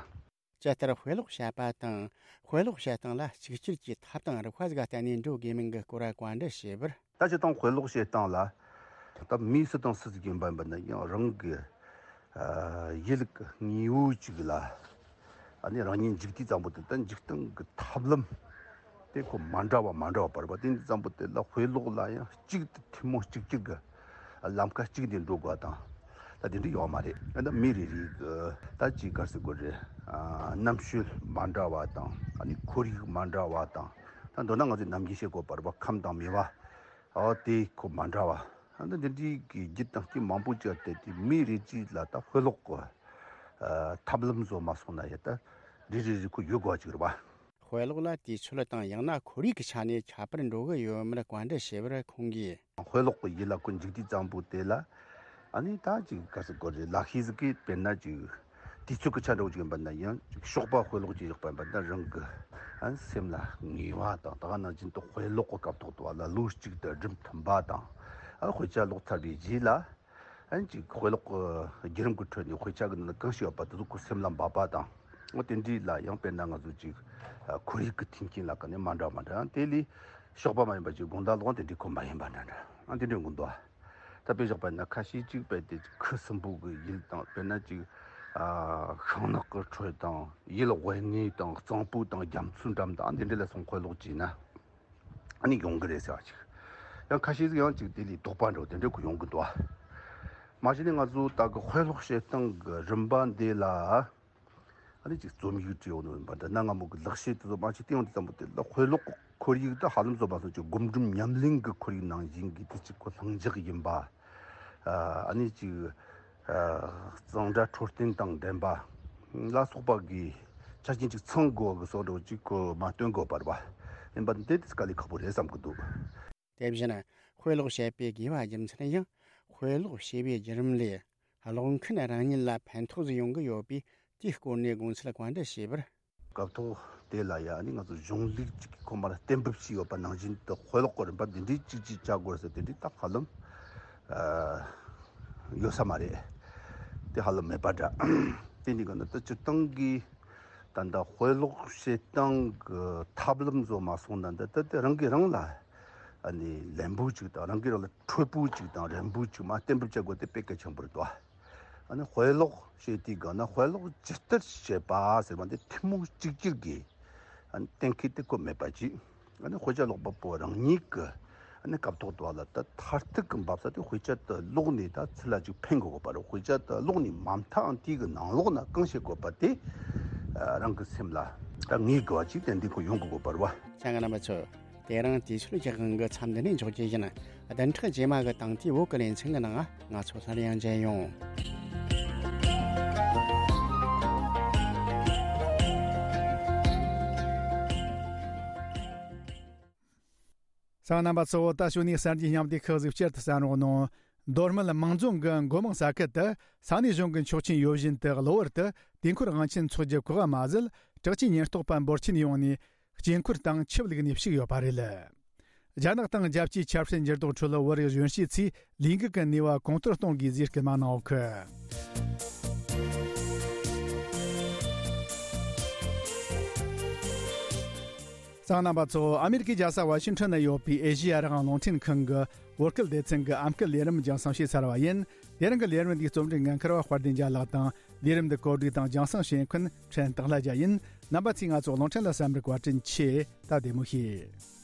ཇི་ལྟར་དཔེ་ཀློག་བྱེད་པ་དང་། དཔེ་ཀློག་བྱེད་སྟངས་ལ་གཅིག་གྱུར་གྱི་ཐབས་དང་རིག་པ་ཟིག་བསྟེན་ནས་འགྲོ་དགོས་མིན་གྱི་སྐོར་བཀའ་འདྲི་ཞུས་པར། ད་སྤྱིར་བཏང་དཔེ་ཀློག་བྱེད་སྟངས་ལ། ད་མི་སུ་དང་སུ་ཟིག་ཡིན་པ་ཡིན་པ་ན་ཡང་རང་གི་ཨ་ཡུལ་གྱི་དངོས་པོ་ཅིག་ལ་ཨ་ནི་རང་ཉིད་འཇུག་དུས་ཙམ་པོ་དེ། ད་འཇུག་སྟངས་ཀྱི་ཐབས་ལམ་དེ་ཁོ་མ་འདྲ་བ་མ་འདྲ་བ་བར་བ། དེ་འདི་ཙམ་པོ་དེ་ལ་དཔེ་ཀློག་ལ་ཡང་གཅིག་ཏུ་ཐུན་མོང་གཅིག་གྱུར་གྱི་ ལམ་ཁ་གཅིག་ནས་འགྲོ་དགོས་དང་། ད་དེ་འདྲ་ཡོད་མ་རེད། ད་མི་རེ་རེ་གི་ད་ཅིག་ག་རེ་ཟེར་དགོས་རེད། ཨ། རྣམ་དཔྱོད་མ་འདྲ་བ་དང་། ཨ་ནི་ཁོར་ཡུག་མ་འདྲ་བ་དང་། ད་མདོར་ན་ང་ཚོས་ནམ་རྒྱུན་བཤད་དགོས་པ་རེད་པ། ཁམས་དང་མོས་པ། ཨོ་དེ་ཁོ་མ་འདྲ་བ། ཨ་ནི་འདི་འདྲའི་གི་རྒྱུ་དང་རྐྱེན་མང་པོ་ཅིག་བརྟེན་ཏེ་མི་རེ་གཅིག་ལ་ད་དཔེ་ཀློག་གི་ཨ་ཐབས་ལམ་བཟོ་མ་སོང་ན་ཡང་ད་རེ་རེ་རེ་ཁོ་ཡོད་དགོས་པ་ཅིག་རེད་པ། དཔེ་ཀློག་ལ་དུས་ཚོད་དང་ཡང་ན་ཁོར་ཡུག་གི་ཆ་ནས་ཁྱད་པར་འགྲོ་གི་ཡོད་མེད་བཀའ་འདྲི་ཞུས་པར་ཁོང་གིས། དཔེ་ཀློག་གི་ཡུལ་ལ་ཁོ་འཇུག་དུས་ཙམ་པོ་དེ་ལ། ཨ་ནི་ད་ཅིག་ག་རེ་ཟེར་དགོས་རེད། ལག་ཤེས་ཟིག་གིས་དཔེར་ན་ཅིག་དུས་ཚོད་ཀྱི་ཆ་འདྲ་བོ་ཅིག་ཡིན་པ་ན་ཡང་ཅིག་ཞོགས་པ་དཔེ་ཀློག་ཅིག་ཡག་པ་ཡིན་པ་ན་རང་གི་ཨ་ནི་སེམས་ལ་ངེས་པ་དང་། ད་ག་ནང་བཞིན་དུ་དཔེ་ཀློག་གི་སྐབས་ཐོག་ཏུ་བ་ལ་ལོ་གཅིག་དང་སྒྲུབ་ཐུབ་པ་དང་། ཨ་དཔེ་ཆ་ཀློག་ཚར་བའི་རྗེས་ལ། ཨན་ཅིག་དཔེ་ཀློག་གི་བརྒྱུད་རིམ་གྱི་ཁྲོད་ནས་དཔེ་ཆ་གི་ནང་གང་ཞིག་ཡོད་པ་དེ་ཚོ་ཁོའི་སེམས་ལ་འབབ་པ་དང་། འོ་དེ་འདྲའི་ལ་ཡང་དཔེར་ན་ང་ཚོ་ཅིག་ཨ་ཁོར་ཡུག་གི་མཐུན་རྐྱེན་ལ་ཀ་ནས་མ་འདྲ་མ་འདྲ། ཡང་དེ་ལས་ཞོགས་པ་མ་ཡིན་པ་ཅིག་དགོང་དག་ལོག་དེ་འདྲའི་ཁོ་མ་ཡིན་པ་འདྲ་འདྲ། ཨ་དེ་འདྲའི་འགོ་འདུག་ད་དཔེ་བཞག་པ་ན་ཁ་ཤས་ཅིག་དཔེ་དེ་ཁུ་སིམ་པོ་གི་ཡུལ་དང་། དཔེར་ན་ཅིག་ཨ་ཤིང་ནགས་ཀྱི་ཁྲོད་དང་། ཡུལ་དབེན་གནས་དང་། གཙང་པོ་དང་། རྒྱ་མཚོའི་འགྲམ་དང་། ཨ་འདི་འདྲ་ལ་སོང་དཔེ་ཀློག་བྱས་ན། ཨ་ནི་ཡོང་གི་རེད་ཟེར་བ་ཅིག་ཡང་ཁ་ཤས་ཟིག་ཡང་ཅིག་དེ་ལས་དོགས་པ་འདྲ་བོ་དེ་འདྲ་ཁོ་ཡོང་གི་འདུག་ཨ། མ་གཞི་ནས་ང་ཚོ་ད་གི་དཔེ་ཀློག་བྱེད་སྟངས་ཀྱི་རིམ་པ་འདི་ལ། ཨ་ནི་ཅིག་རྩོམ་ཡིག་བྲིས་ཡོང་ནི་ཡིན་པ་འདྲ། གནའ་སྔ་མོ་གི་ལག་ཤེས་དེ་ཚོ་མ་ཅིག་བསྟན་ཡོང་དུས་ཙམ་པོ་དེ་ལ་དཔེ་ཀློག་གི་ཁོར་ཡུག་ད་ཧ་ལམ་བཟོ་མ་སོང་ཅིག་སྒོམ་སྒྲུབ་ཉམས་ལེན་གྱི་ཁོར་ཡུག་ནང་བཞིན་གྱི་དེ་ཅིག་ཁོ་ལྷིང་འཇགས་ཡིན་པ། ཨ་ནི་ཅིག་གཙང་སྦྲ་འཕྲོད་བསྟེན་དང་ལྡན་པ་ལ་སོགས་པ་གི་ཆ་རྐྱེན་ཅིག་ཚང་དགོས་གི་བཟོ་འདྲ་ཅིག་གོ་མ་སྟོན་དགོས་པར་བ་ཡིན་པ་འདི་དེ་དཀའ་ལས་ཁག་པོ་རེད་བསམ་གི་འདུག་དེ་བཞིན་དཔེ་ཀློག་བྱེད་པའི་དགོས་པ་རྒྱུ་མཚན་ཡང་དཔེ་ཀློག་བྱེད་པའི་བརྒྱུད་རིམ་ལས་ཀློག་མཁན་རང་ཉིད་ལ་ཕན་ཐོགས་ཡོང་གི་ཡོད་པས། དེའི་སྐོར་ནས་དགོངས་ཚུལ་བཀའ་འདྲི་ཞུས་པར། སྐབས་ཐོག་དེ་ལ་ཡང་ནི་ང་ཚོ་གཞུང་ལུགས་ཅིག་གི་ཁོ་མར་གཏན་འབེབས་བྱས་ཡོད་པ་ནང་བཞིན་དུ་དཔེ་ཀློག་གི་རིམ་པ་འདི་འདྲའི་གཅིག་གཅིག་བྱ་དགོས་ཟེར་དེ་འདྲའི་ད་ཧ་ལམ་ཡོད་ས་མ་རེད། དེ་ཧ་ལམ་མེད་པ་འདྲ། དེ་འདི་ག་ན་ད་སྤྱིར་བཏང་གི་ད་ལྟ་དཔེ་ཀློག་བྱེད་སྟངས་ཀྱི་ཐབས་ལམ་བཟོ་མ་སོང་ན་འདི་ད་དེ་རང་གིས་རང་ལ་ཨ་ནི་ལན་པོ་ཅིག་དང་རང་གིས་རང་ལ་འཕྲོད་པོ་ཅིག་དང་རན་པོ་ཅིག་མར་གཏན་འབེབས་བྱ་དགོས་དེ་དཔེ་གལ་ཆེན་པོ་རེད་དོ། ཨ་ནི་དཔེ་ཀློག་བྱེད་དུས་ག་ན་དཔེ་ཀློག་ཇི་ལྟར་བྱེད་པ་ཟེར་བ་འདི་ཐུན་མོང་གཅིག་གྱུར་གྱི་ཨ་ནི་གཏན་འཁེལ་དེ་ཁོ་མེད་པ་ཅིག་ཨ་ནི་དཔེ་ཆ་ཀློག་པ་པོ་རང་ཉིད་ཀྱི་ཨ་ནི་སྐབས་ཐོག་ཏུ་བ་ལ་ད་མཐར་ཐུག་གི་འབབ་ས་དེ་དཔེ་ཆ་དེ་ཀློག་ནས་ད་ཚུར་ལ་ཅིག་ཕན་དགོས་པ་རེད། དཔེ་ཆ་དེ་ཀློག་ནས་མ་མཐའ་དེའི་གི་ནང་ལོགས་ན་གང་བྱེད་དགོས་པ་དེ་ཨ་རང་གི་སེམས་ལ་ད་ངེས་དགོས་པ་ཅིག་ཏན་ཏན་ཁོ་ཡོང་དགོས་པ་རེད་བ། ཆང་རྣམ་པ་ཚོ། དེ་རིང་དུས་ཚོད་ཀྱི་དབང་གིས་མཚམས་འདི་ནས་འཇོག་རྒྱུ་ཡིན། བདུན་ཕྲག་རྗེས་མ་གི་དང་དེའི་བོད་ཀྱི་ལེ་ཚན་གྱི་ནང་ང་ཚོ་སླར་ཡང་མཇལ་ཡོང་། གསན་མཁན་རྣམ་པ་ཚོ། ད་ཞུ་ནས་གསར་འགྱུར་སྙིང་བསྡུས་ཁག་ཟིག་བསྐྱར་དུ་གསན་རོགས་གནང་། མདོ་སྨད་མང་རྫོང་གི་མགོ་མང་ས་ཁུལ་དུ་ས་གནས་གཞུང་གི་ཆོག་མཆན་ཡོད་བཞིན་དུ་གློ་བུར་དུ་དུས་འཁོར་དབང་ཆེན་འཚོགས་རྒྱུ་གོ་སྐབས་མ་ཟད། དྲག་ཆས་ཉེན་རྟོག་པ་འབོར་ཆེན་ཡོང་ནས། དཀྱིལ་འཁོར་དང་ཆུ་བླུགས་ནས་བཤིག་ཡོད་པ་རེད། རྒྱ་ནག་དང་རྒྱལ་སྤྱིའི་ཆབ་སྲིད་འགྱུར་ལྡོག་ཁྲོད་བོད་རིགས་གཞོན་སྐྱེས་ཚོས་ལས་འགུལ་གྱི་ནུས་པ་གོང་མཐོར་གཏོང་དགོས་ཟེར་སྐུལ་མ་གནང་ཡོད་གི། གསན་མཁན་རྣམ་པ་ཚོ། ཨ་མེ་རི་ཀའི་རྒྱལ་ས་ཝ་ཤིང་ཊོན་ན་ཡོད་པའི་ཨེ་ཤེ་ཡ་རང་དབང་རླུང་འཕྲིན་ཁང་གི་བོད་སྐད་སྡེ་ཚན་གྱི་ཨམ་སྐད་ལས་རིམ་རྒྱང་སྲིང་བྱས་ཚར་བ་ཡིན། དེ་རིང་གི་ལས་རིམ་འདིའི་རྩོམ་སྒྲིག་འགན་འཁུར་བ་དཔལ་ལྡན་རྒྱལ་ལགས་དང་། ལས་རིམ་འདི་གོ་སྒྲིག་དང་རྒྱང་སྲིང་བྱེད་མཁན་ཕྲན་སྟག་ལྷ་རྒྱལ་ཡིན། རྣམ་པ་ཚོས་ང་ཚོ་རླུང་འཕྲིན་ལ་གསན་པར་བཀའ་དྲིན་ཆེ། ད་བདེ་མོ་བྱོས།